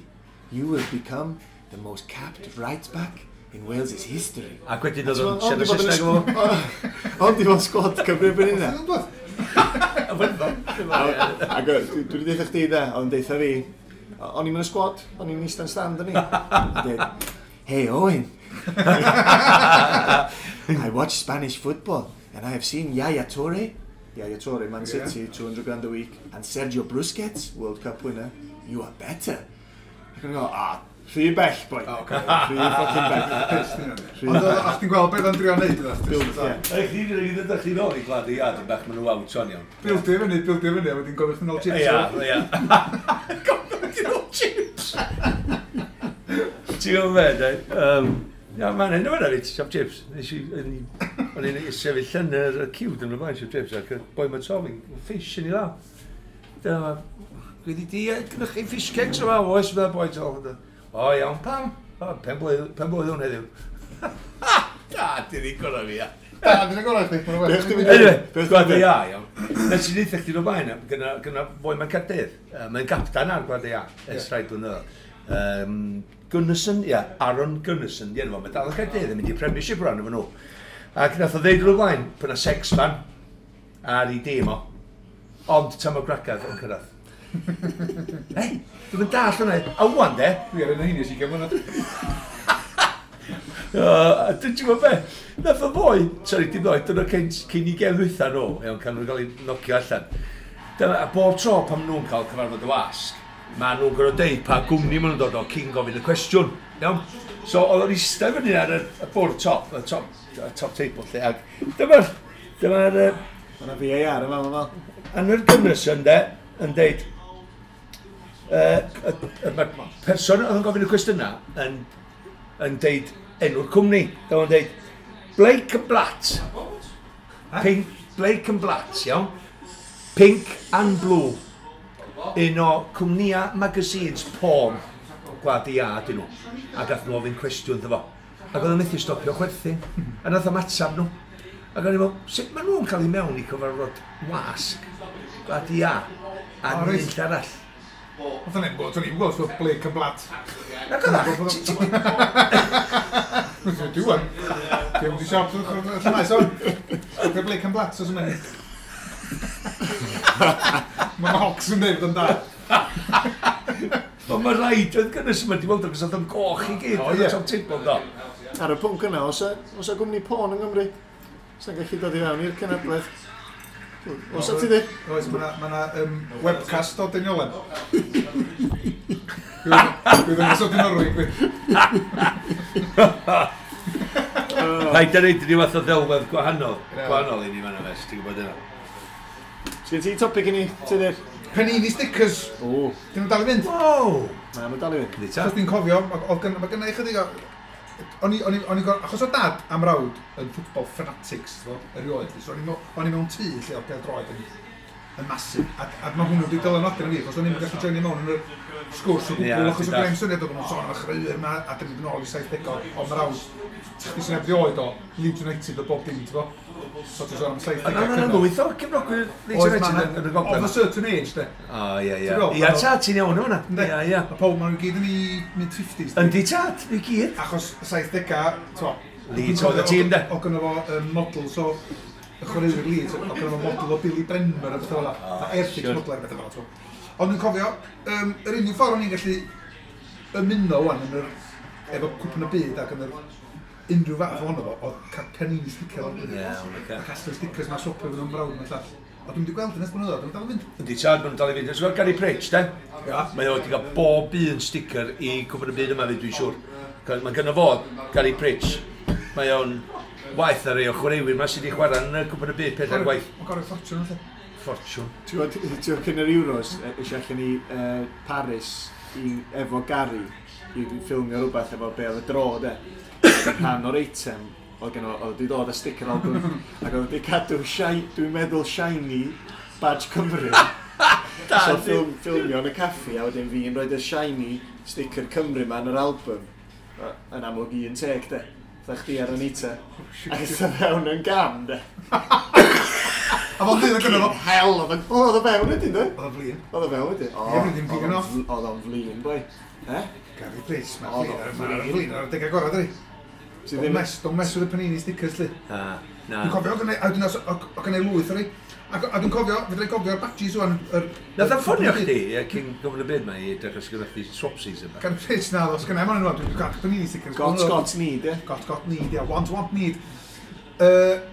you will become the most capped right back in Wales' history.
Ac wedyn oedd o'n siarad Saesneg efo.
Ond di fod sgwad Cymru erbyn hynna. Ac dwi wedi deitha chdi da, oedd o'n deitha fi, o'n i'n mynd y sgwad, o'n i'n eistedd stand o'n i. Deud, hey Owen, I watch Spanish football and I have seen Yaya Toure, Man City, 200 grand a week, and Sergio Busquets, World Cup winner, you are better. Ac o'n i'n go, rhy bell, boi. Rhy fucking bell.
Ond o'ch ti'n gweld beth o'n drio neud iddo?
Build, ie.
Ych chi ddod chi nôl i Gwlad y Iâ, dyn bach, maen nhw out on iawn.
Bildio fyny, a wedyn gofyn chdi nôl chips.
Ia, ia. Gofyn chdi nôl chips! Ti'n gwybod be, de? Ia, mae'n hyn o fyna fi, siop chips. O'n i'n sefyll yn yr ciw dyn nhw'n blaen siop chips, ac y boi ma'n sofyn, fish yn ei law. Dyma, dwi wedi gynnwch chi fish cakes yma, oes, mae'n boi tol. O, iawn, pam? O, pen blwydd hwn heddiw. Da, di ni gorau fi, ia.
Da, di ni gorau chdi.
Anyway, Gwlad y Iâ, iawn. Nes i ddeutha chdi o'r blaen, gyna foi mae'n Caerdydd. Mae'n gaptan ar Gwlad y Iâ, ers rhai blynyddoedd. Gunnarsson, ia, Aaron Gunnarsson, di enw fo. Mae dal yn Caerdydd yn mynd i Premiership rhan efo nhw. Ac nath o ddeud o'r blaen, pan na sex fan ar ei dîm o. Ond tam o gragadd yn cyrraedd. Hei, dwi'n mynd dall hwnna. A wan de.
Dwi ar un o hynny sy'n gymryd.
Dwi'n gwybod be? Nath o ddoi, sori, dim ddoi, dyna cyn i gem ddwytha nhw, iawn, can nhw'n cael eu nocio allan. Dyna, a bob tro pan nhw'n cael cyfarfod y wasg, ma nhw'n gorfod deud pa gwmni maen nhw'n dod o cyn gofyn y cwestiwn, iawn? So, oedd o'n eistedd fyny ar y bwrdd top, y top table lle, ac dyma'r...
Mae yna VAR yma, mae'n fel.
Anwyr Gunnarsson, de, yn deud, mae'r person oedd yn gofyn y cwestiynau yn deud enw'r cwmni. Dyma o'n deud, Blake and Blatt. Pink, Blake and Blatt, iawn. Pink and Blue. Un o cwmnïa magazines porn Gwlad y Iâ dyn nhw. A gath nhw ofyn cwestiwn iddo fo. Ac oedd o'n methu stopio chwerthin. A nath o'm atab nhw. Ac o'n i'n meddwl, sut maen nhw'n cael eu mewn i cyfarfod wasg Gwlad y Iâ a nid arall?
Oedd o'n gwybod, o'n i'n gwybod, so Blake and Blatt.
Na gyda.
Dwi wan. Dwi'n mynd i siop, dwi'n maes o'n. Dwi'n Blake and Blatt, os yn mynd. Mae Hawks yn dweud yn da.
Ond mae rhaid oedd gynnwys yma, di weld achos oedd o'n goch i gyd.
O,
Oedd
ie.
o'n top table, do.
Ar y pwnc yna, oes a gwmni porn yng Nghymru? Sa'n gallu dod i fewn i'r cenhedlaeth? Oes a ti di?
Oes, mae yna webcast o Deiniolen. Dwi'n ddangos o Dinorwig, fi.
Rhaid ar rhaid ryw fath o ddelwedd gwahanol.
Ie.
Gwahanol i ni fan yma, ti'n gwybod yna.
Sgyn ti topic i ni, Tudur?
Panini stickers.
O,
Dyn nhw'n dal i fynd?
Wow!
na, mae dal i fynd.
Yndi ta?
Achos dwi'n cofio, mae gynna i chydig o... O'n i achos o dad am rawd yn football fanatics, ti'n gwbod, erioed, so o'n i mewn tŷ lle oedd pêl-droed yn masif, a mae hwnnw wedi dylanwadu arna fi, achos o'n i'n gallu joinio mewn yn yr sgwrs o
Ie,
gwbl, achos
ti'n
o greu
dallt.
syniad oedd nhw'n sôn am y chwaraewyr yma, a dyn nhw'n ôl i 70au, ond mae rawd, chdi sy'n ebdi oed o, Leeds United o bob dim, ti'n gwbod? So ti'n sôn am 70au
Ond yna
cynnar.
lwyth o cefnogwyr Leeds
Oedd,
United
ma'
yn y
Of
gogledd.
a certain age, de.
O, ie, ie.
Ti'n gweld,
Ia,
ma' nhw-
tad, ti'n iawn yma.
Yndi.
Ia, ia.
A pob, maen nhw gyd yn ei mid-50s.
Yndi tad, i gyd.
Achos y 70au, to.
Leeds oedd y tîm, de.
O gynno fo models o y chwaraewyr Leeds, o gynno fo model o Billy Bremner a bethau fel 'na.
O,
A Airfix
siwr.
model a bethau fel 'na, t'mo. Ond dwi'n cofio, yr unig ffordd o'n i'n gallu ymuno wan yn yr, efo cwpan y byd ac yn yr unrhyw fath ohono fo, oedd cael Panini sticker o'n
Iawn, ocê.
A casglu stickers ma swpio fydd o'n brawd mewn llall. A dwi'n wedi gweld yn ers blynyddoedd, dwi'n dal yn fynd.
Yndi tad, maen nhw'n dal i fynd. Ti'n gweld Gary Pritch, de?
Ia.
Mae o wedi cael bob un sticker i Cwpan y Byd yma fi, dwi'n siŵr. Mae gynno fo, Gary Pritch, mae o'n waeth ar ei o chwaraewyr ma sydd wedi chwarae yn y Cwpan y Byd pedair gwaith.
Mae'n gorau ffortiwn, felly.
Ffortiwn.
Ti'n gwybod cyn yr Euros, eisiau allan i Paris i, efo Gary i ffilmio rhywbeth efo be oedd y dro, de. Ac yn rhan o'r eitem, oedd gen o, oedd wedi dod â sticker album, ac oedd wedi cadw, dwi'n meddwl shiny badge Cymru. So ffilmio yn y caffi, a wedyn fi'n rhoi y shiny sticker Cymru ma yn yr album. Yn amlwg un teg, de. Fatha chdi ar Anita. Ac ydw fewn yn gam, de.
A fo'n dweud gynno fo.
Hell, oedd o'n... Oedd o fewn wedyn, de?
Oedd o'n flin.
Oedd o fewn wedyn. O,
Ie, mynd i'n pigo off.
Oedd o'n flin, boi. Eh?
Gary Pritch,
Oedd
mae'n
o'n
flin.
flin.
Flin ar y degau gorau, dydi?
Ti
Don't
ddim...
mess, don't mess with the Panini stickers, li.
Na, na.
Dwi'n cofio, oedd gynna i lwyth o'r i. Ac a dwi'n cofio, fedra i gofio'r badges wan.
Nath o'n ffonio chdi, ie, cyn Cwpan y Byd ma i dechrau sgynnoch chdi swapsies yma.
Gary Pritch, na, os gynna i moyn nhw, dwi'n cael Panini stickers.
Got, got, need, ie.
Got, got, need, ie. Want, want, need.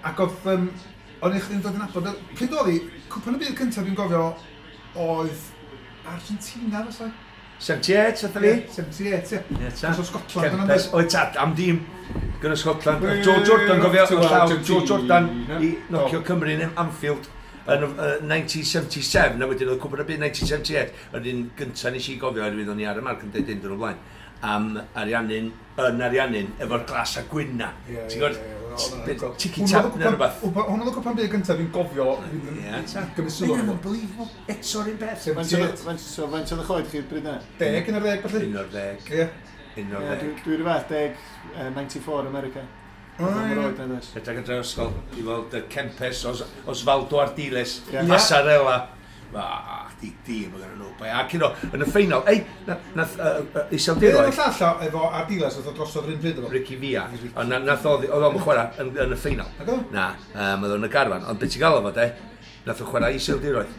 Ac oedd, o'n i chdi'n dod yn abod, pryd oedd hi, cwpan y byd cyntaf dwi'n gofio oedd Argentina, fysa?
78, oedd fi?
78, ie.
Ie, ta.
Achos o Scotland yna,
Kempes, oedd tad, am dîm gyda Scotland. Oedd Joe Jordan, gofio,
To
oedd llaw Joe Jordan
Argentina.
i nocio Cymru yn Anfield yn 1977, a wedyn oedd Cwpan y Byd 1978, yr un gyntaf nes i gofio, oherwydd o'n i ar y marc yn dweud un dyn o blaen, am Ariannin, yn Ariannin, efo'r glas a gwyn na.
Ie,
Ti'n
ie,
gwybod?
ie, oedd o'n
Tiki tap neu rhywbeth.
Hwnnw oedd y cwpan byd gyntaf fi'n gofio, fi'n
Ie, ta.
gymryd sylw
Mae'n
arno fo.
unbelievable. Eto'r un beth.
Faint so, faint oedd y choed chi bryd yna?
10 yn yr 10, felly.
11.
Ie.
Ie,
11.
Dwi rhyw fath, 10, 94 America.
O,
Oedd o'n
ie.
oed na does.
Rhedeg adre ysgol i weld y Kempes, Osvaldo Ardiles,
Ie.
Passarella. Ah, di dim oedd nhw. Bai, Ac you know, yn y ffeinal, ei, nath
Be
Iseldiroedd,
oedd y llall o efo Ardiles oedd o drosodd yr un pryd efo?
Ricky Villa, ond nath oedd o'n chwarae yn y ffeinal.
Nag oedd?
Na, oedd o'n y garfan, ond beth ti'n gael o fo, de, nath o chwarae Iseldiroedd.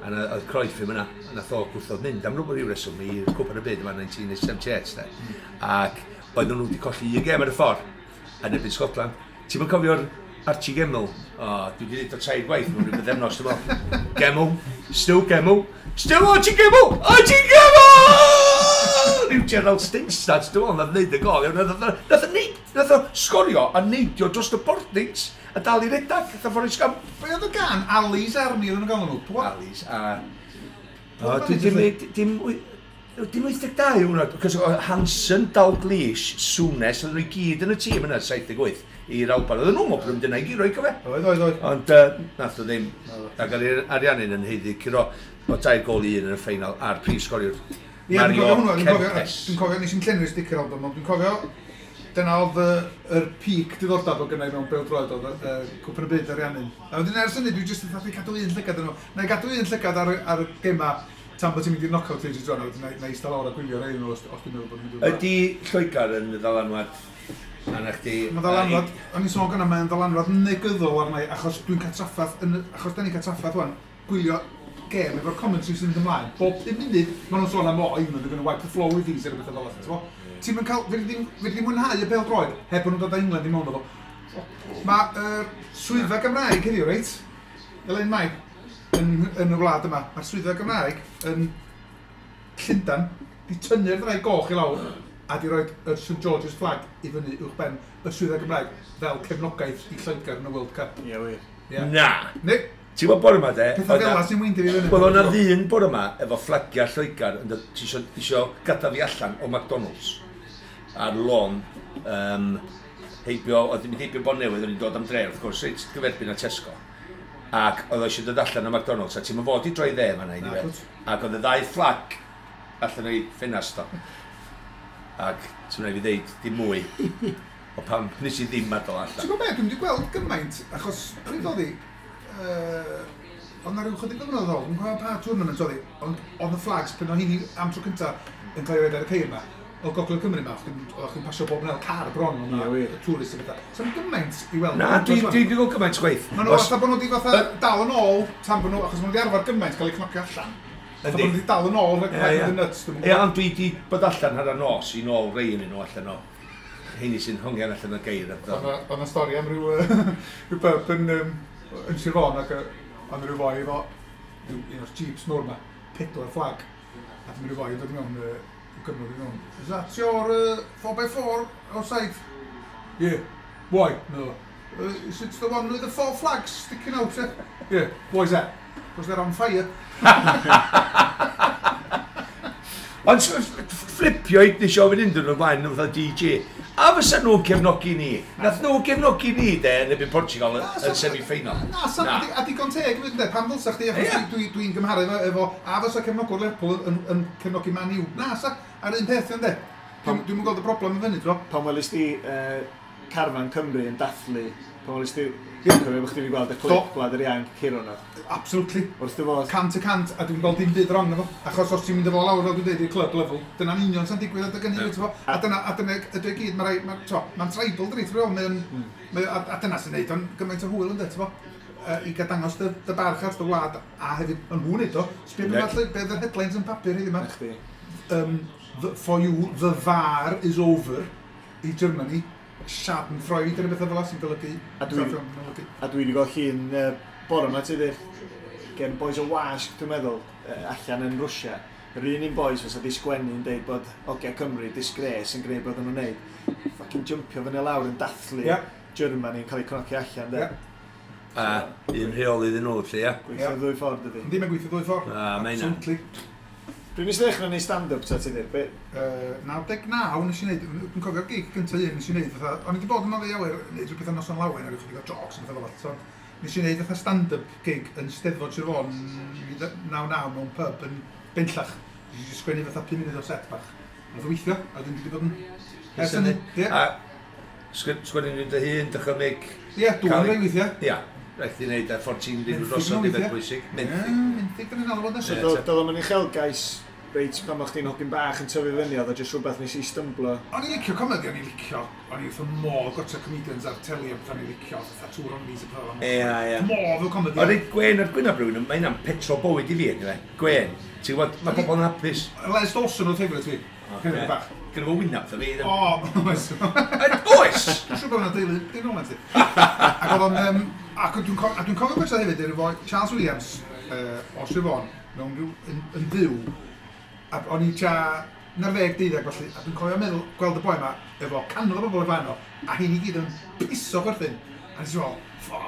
A oedd Cruyff ddim yna, a nath o gwrthod mynd am rhywbeth ryw reswm i Cwpan y Byd yma 1978, de. Ac oedden nhw wedi colli un gêm ar y ffordd yn erbyn Scotland. Ti'n mynd cofio'r Archie Gemmell? O, dwi wedi dweud o tair gwaith mewn rhyw bythefnos, dwi'n meddwl. Gemmell, still Gemmell, still Archie Gemmell, Archie Gemmell! Rhyw Gerald Stinstad, dwi'n meddwl, nath wneud y gol. Iawn, Nath o sgorio a neidio dros y boardings a dal i redag, nath o Forrest Gump.
Be oedd y gan? Ali's Army oedd nhw'n galw nhw? Pwy?
Ali's a... O,
Pwy
dwi
oedd
dim, dim, dim 82 yw hwnna, cos o Hansen, Dalglish, Souness, oedden nhw i gyd yn y tîm yna, 78, i'r Alban. Oedden nhw'n meddwl bod nhw'n mynd yna i guro i cofio.
Oedd.
Ond nath o ddim. Ac oedd Ariannin yn haeddu curo o 3-1 yn y ffeinal a'r prif sgoriwr
Ie, dwi'n
Mario
cofio hwnnw, dwi'n cofio,
Kempes.
dwi'n cofio, nes i'n llenwi'r sticker album, ond dwi'n cofio, dyna oedd yr peak diddordeb o gynna i mewn bêl-droed, oedd y Cwpan y Byd Ariannin. A wedyn ers hynny, dwi jyst yn fatha cadw un llygad yn nhw. Na i gadw un llygad ar y gema Tan bod ti'n mynd i'r knockout stage i dro, na i eistedd lawr a gwylio rei nhw os dwi'n meddwl bod nhw'n mynd i'r
Ydy Lloegr yn ddylanwad arna chdi?
Mae ddylanwad, o'n i'n sôn gynna, mae'n ddylanwad negyddol arna i, achos dwi'n cael traffath, achos da ni'n cael traffath wan, gwylio gêm efo'r commentary sy'n mynd ymlaen. Bob 5 munud, maen nhw'n sôn am, "Oh, England are going to wipe the floor with these," neu rhywbeth fel 'na, t'mo? Ti'n mynd cael, fedri di mwynhau y bêl droed, heb bod nhw'n dod â England i mewn o fo. Mae swyddfa Gymraeg heddiw, reit? Elin Mai, yn y wlad yma, mae'r swyddfa Gymraeg yn Llundan, di tynnu'r ddraig goch i lawr a di roed y St George's flag i fyny uwch ben y swyddfa Gymraeg fel cefnogaeth i Lloegr yn y World Cup.
Ie, wir.
Ie.
Na!
Ne,
Ti'n gwybod bore yma de?
pethau fel 'na sy'n weindio fi fyny.
Wel, o'na ddyn bore yma efo fflagiau Lloegr yn dod, ti isio gadael fi allan o McDonald's ar lôn heibio, oedd yn mynd heibio Bontnewydd, o'n i'n dod am dre, wrth gwrs, reit gyferbyn â Tesco. Ac oedd o eisiau dod allan o McDonald's, a ti'n mynd fod i droi dde fan'na,
Na,
anyway.
cwt.
Ac oedd y ddau fflag allan o'i ffenast o. Ac ti'n rhaid fi ddeud dim mwy o pam nes i ddim adael
Ti'n
allan.
gwybod beth, dwi'n wedi gweld gymaint, achos pryd oedd hi, oedd na rhyw chydig o flynyddoedd ôl, dwi'n cofio pa tournament oedd hi, ond oedd y flags, pan oedd hi'n am tro cynta yn cael ei roed ar y ceir yma, o Gogledd Cymru yma, o'ch chi'n pasio bob yn car bron, oedd
Ie,
na
wir.
tourist a bethau. So gymaint i weld.
Na, dwi wedi gweld gymaint chwaith.
Maen nhw fatha bod nhw wedi fatha dal yn ôl, tan bod nhw, achos maen nhw wedi arfer gymaint cael eu cnocio allan. Fatha bod
Yndi.
nhw wedi dal yn ôl, rhag
Ie,
rhag
ie.
mynd yn nuts, dwi'm yn
Ie,
gwbod.
ond dwi wedi bod allan hanner nos i nôl rei yn nhw allan o heini sy'n hongian allan o geir. a pethau.
Oedd 'na stori am ryw, ryw pub yn Sir Fôn ac oedd 'na ryw foi efo ryw, un o'r jeeps mawr 'ma, pedwar fflag. A dyma ryw foi yn dod i mewn, ryw Gymro i mewn. "Is that your 4x4 outside?" "Yeah." "Why?" "No. Is it the one with the four flags sticking out?" "Yeah." "Yeah." "Why is that?" "Because they're on fire."
Ond fflipio i nes i ofyn unrhyw nhw'n blaen nhw fatha DJ. A fysa nhw'n cefnogi ni? Nath nhw cefnogi ni de yn erbyn Portugal
Na,
yn semi-final.
Na, sa, a digon teg hefyd, ynde, pam ddylsa chdi, achos
Ie.
dwi'n gymharu efo, a fysa cefnogwr Lerpwl yn cefnogi Man U. Na, sa, ar un peth, ynde. Dwi'm yn gweld y broblem yn fyny, dro.
Pan welys di carfan Cymru yn dathlu, pan welys di, dwi'n cofio bod chdi wedi gweld y clip
Do.
Gwlad yr Ianc curo nhw.
Absolutely.
Wrth dy fodd.
100%, a dwi'n gweld dim byd wrong efo. Achos os ti'n mynd efo lawr, fel dwi'n dweud, i'r club level, dyna'n union sy'n digwydd adeg hynny, ti'n fo? A dyna ydy o gyd, mae'n tribal, dydi, ti'n fo? A dyna sy'n neud o'n gymaint o hwyl, ynddo, ti'n fo? I gael dangos dy barch at dy wlad, a hefyd, yn nhw'n neud o, sbio
Yndi.
beth yr headlines yn papur heddiw yma.
Na chdi.
For you, the VAR is over i Germany. Schadenfreude neu bethau fel 'na sy'n golygu. Golygu.
A dwi wedi gweld llun bore yma, ti dweud, gen boys o wasg, dwi'n meddwl, allan yn Rwsia. Yr un boys fysa di sgwennu yn deud bod Ogia Cymru disgrace yn gwneud bod nhw'n neud. Fucking jumpio fyny lawr yn dathlu Germany yn cael eu cnocio allan, de.
Ie.
A un rheol iddyn nhw, lle, ia.
Gweithio ddwy ffordd ydi.
Yndi, mae'n gweithio ddwy ffordd.
Na, mae hynna.
Absolutely.
Pryd nes i ddechrau neud stand-up ta ti dweud? Be?
99 nes i wneud, dwi'n cofio'r gig gyntaf un nes i wneud, fatha, o'n i wedi bod yn oddi awyr, wneud rhywbeth am noson lawen, a rhyw chydig o jocs a pethau fel 'na, so nes i wneud fatha stand-up gig yn Steddfod Sir Fôn 99 mewn pub yn Benllach. Nes i sgwennu fatha 5 munud o set bach. Nath o weithio, a dwi'n wedi bod yn ers hynny. Ie,
A sgwennu nhw'n dy hun, dychymyg.
ie, dwi'n
Cael-
rhaid weithiau.
Ia, rhaid i wneud a ffordd ti'n mynd
Menthyg
drosodd
nhw
i beth
weithiau.
bwysig.
Ie,
Menthyg.
menthyg, dyna'n alw
So
nesaf.
Ie,
doedd o'm yn uchelgais reit pan o'ch chdi'n hogyn bach yn tyfu fyny, oedd o jyst rhywbeth nes i stymblo.
O'n i'n licio comedy, o'n i'n licio, o'n i wrth y modd gwatsio comedians ar teli a beth o'n i'n licio, fatha Two Ronnies a pethau fel 'na.
Ie, ie.
Modd o comedy.
Ond reit gwen ar gwyn rhywun, mae hynna'n petrol bywyd i fi, yndyfe? Gwen. Ti'n gwybod, mae pobl yn hapus.
Les Dawson oedd favourite fi. Favourite bach.
Gyda fo wynaf, dda fi.
O, oes.
Oes!
Dwi'n siŵr bod yna deulu, dim rhywle ti. Ac oedd o'n, ac dwi'n cofio gwatsio hefyd efo Charles Williams o Sir Fôn, mewn rhyw, yn fyw, a o'n i tua 19, 12 felly, a dwi'n cofio meddwl, gweld y boi yma, efo cannoedd o bobl o flaen o, a hyn i gyd yn piso chwerthin. A nes i fel, ffo,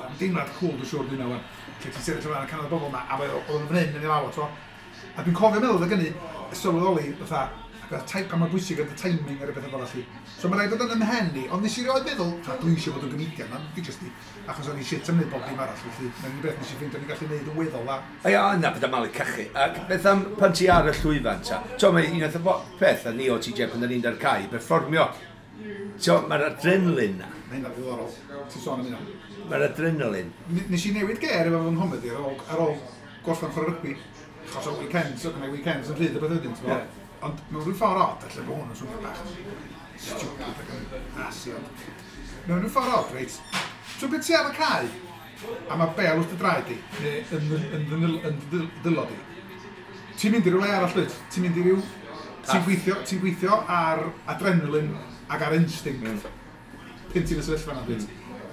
am deimlad cool dwi'n siŵr dwi'n wan. Lle ti'n sefyll o flaen y cannoedd o bobl yma, a oedd o'n fan hyn yn ei law, t'mo. A dwi'n cofio meddwl oedd gynnu, sylweddoli, fatha, ac oedd pa mor bwysig oedd y timing ar y bethau fel allu. So mae rhaid bod yn ymhen i, ond nes i rioed meddwl, "Ta, dwi eisiau bod yn comedian, na, fi jyst i, achos o'n i shit am wneud bob dim arall, felly mae'n unig beth nes i ffeindio o'n i'n gallu neud yn weddol dda.
A ia, na, beth am malu cachu. Ac beth am pan ti ar y llwyfan ta? To, mae un o'r peth a ni o TJ pan da ni'n dar cae, perfformio. T'o, mae'r adrenalin na.
Mae hynna'n ddiddorol, ti'n sôn am hynna.
Mae'r adrenalin.
Nes i newid ger efo fy nghomedi ar ôl gorffen chwarae rygbi. Achos o weekends, o gynnau weekends yn rhydd y beth wedyn, ti'n
Ie.
Ond mewn rhyw ffordd od, allan bod hwn yn swnio bach stupid ac yn asi, ond mewn rhyw ffordd od, reit, so beth ti ar y cae, a mae bel wrth dy draed di, neu yn dy dwylo di, ti'n mynd i ryw le arall, dwyt? Ti'n mynd i ryw... Ti'n gweithio ar adrenaline ac ar instinct pan ti'n y sefyllfa yna, dwyt?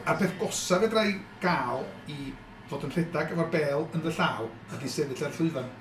A'r peth gosa fedra i gael i fod yn rhedeg efo'r bel yn dy llaw ydy sefyll ar llwyfan.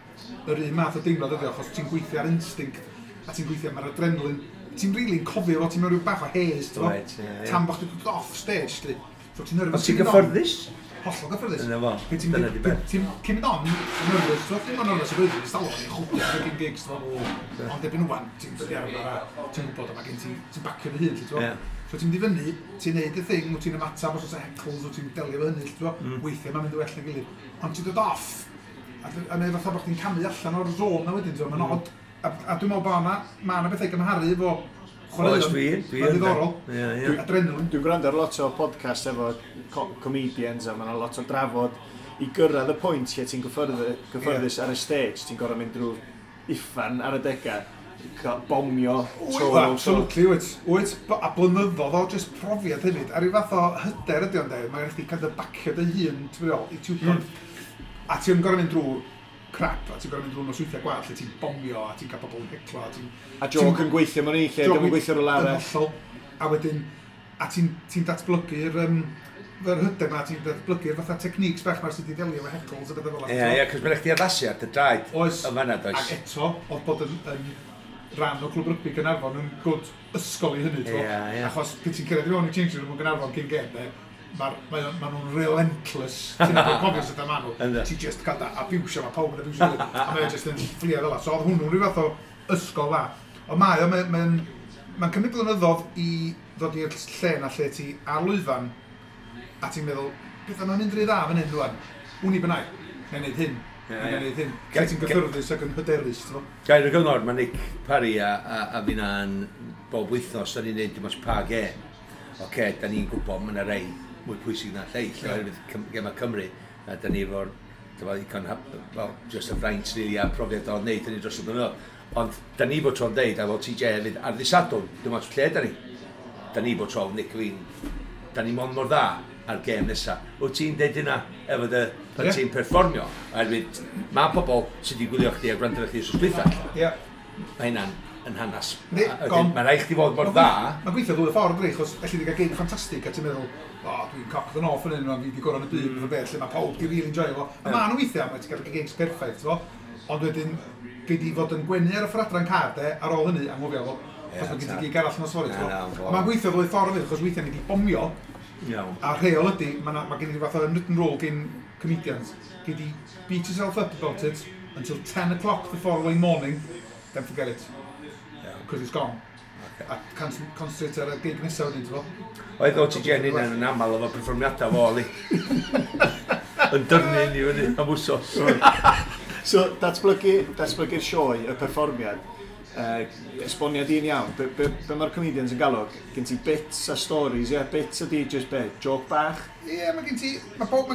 Yr un math o deimlad ydi o, achos ti'n gweithio ar instinct a ti'n gweithio ar adrenaline. Ti'n really'n cofio fo, ti'n mewn rhyw bach o haze, ti'n
Reit, ie.
Tan bo chdi dod off stage, lly. So ti'n nervous.
Ond ti'n
cyn mynd on.
gyfforddus?
Hollol gyfforddus.
Yna fo,
Pryd ti'n
dyna di beth.
Ti'n cyn mynd on, nervous, ti'n ddim yn nervous o blwyddyn, ti'n stalwm yn chwbio ar fucking gigs, ti'n fo. Ond erbyn wan, ti'n dod i arfer a ti'n gwybod a mae gen ti, ti'n bacio dy hun, ti'n fo. So ti'n mynd i fyny, ti'n neud y thing, wyt ti'n ymateb os oes heckles, wyt ti'n delio efo hynny, ti'n fo. Weithiau mae'n mynd yn well na gilydd. Ond ti'n dod off, a mae fatha bod chdi'n camu allan o'r zone na wedyn, ti'n fo, mae'n odd. A dwi'n meddwl bod na, ma' 'na bethau gymharu efo chwaraeon.
Oes, dwi
Mae'n
yn,
ddiddorol.
Ie.
Adrenaline.
Dwi'n gwrando ar lot o podcast efo comedians a mae yna lot o drafod i gyrraedd y pwynt lle ti'n gyffyrddus ar y stage, ti'n gorfod mynd drwy uffan ar y degau, bomio
Wyt,
tro ar ôl tro.
absolutely, wyt. Wyt, a blynyddoedd o just profiad hefyd. A ryw fath o hyder ydi o'n dweud, mae'n chdi kind of bacio dy hun, ti'n meddwl, i ti'n mm. A ti'n gorfod mynd drwy crap, a ti'n gorfod mynd drwy nosweithiau gwael, lle ti'n bomio, a ti'n cael pobl yn heclo, a ti'n
A joke yn gweithio mewn un lle,
Joke
ddim yn gweithio rhywle
yn
arall.
hollol. A wedyn, a ti'n datblygu'r yr hyder ma, ti'n datblygu'r fatha techniques bach ma sydd wedi delio efo heckles a bethau fel 'na.
Ie, cos mae'n chdi addasu ar dy draed.
Oes.
Yn fanna, does.
Ac eto, oedd bod yn rhan o Clwb Rygbi Gaernarfon yn good ysgol i hynny, t'mo?
Ie, ie.
Achos pryd ti'n cyrraedd i mewn i changing room yn Gaernarfon cyn gêm, de, ma nhw'n relentless. Ti'n nabod cofio sut ma nhw.
Ynddo.
Ti just cael da abusio, mae pawb yn abusio. A mae o just yn fflio fel 'a. So oedd hwnnw'n rhyw fath o ysgol dda. Ond mae o, mae'n cymryd blynyddoedd i ddod i'r lle na lle ti ar lwyfan a ti'n meddwl, beth yma'n mynd rhy dda fan hyn rwan? Wn i bynnag, neu wneud hyn, neu wneud hyn. Lle ti'n gyffyrddus ac yn hyderus, ti'n fo?
Gair o gyngor, mae Nick Parry a finna'n bob wythnos, da ni'n neud dim ots pa gêm. Oce, da ni'n gwybod mae yna rei mwy pwysig na lleill, oherwydd gema Cymru, a da ni efo'r dyma, ddigon, well, just y fraint rili a profiad o wneud hynny dros y blynyddoedd. Ond da ni bod tro'n deud, a fel TJ hefyd, ar ddydd Sadwrn, dim ots lle da ni. Da ni bod tro'n Nick a fi'n, da ni mond mor dda ar gêm nesa. Wyt ti'n deud hynna efo dy, pan ti'n perfformio? Oherwydd mae pobl sydd wedi gwylio chdi a gwrando ar chdi wrth dwytha. Mae hynna'n yn hanas.
Yndi,
A wedyn,
gone.
Mae rhaid chdi fod mor dda.
Mae'n gweithio ddwy ffordd, dydi, achos elli di gael gig ffantastig a ti'n meddwl, o, dwi'n cock the north yn hyn, fi di gorau yn y byd, mm. beth, lle mae pawb di really enjoy fo. A ma' nhw weithiau, mae ti'n cael gigs perffaith, ti'n fo. Ond wedyn, gei di fod yn gwenu ar y ffordd adra'n car, de, ar ôl hynny, anghofio fo. Achos mae gen ti gig arall nos fory, ti'n
Na, na,
fo.
fo.
Mae'n gweithio ddwy ffordd hefyd, achos weithiau ni di bomio, a rheol ydy, mae ma gen i fath o unwritten rule gen comedians. Gei di beat yourself up about it until 10 o'clock the following morning, then forget it. Because it's gone. A concentrate ar y gig nesaf wedyn, ti'n fo?
Oedd o ti gen hynna'n yn aml efo perfformiadau fo, li. Yn dyrnu ni fyny am wsos.
So, datblygu'r sioe, y perfformiad, esboniad un iawn, be mae'r comedians yn galw, gen ti bits a stories, ie, yeah? Bits ydi just be, joke bach?
Ie, yeah, mae gen ti... Mae pob...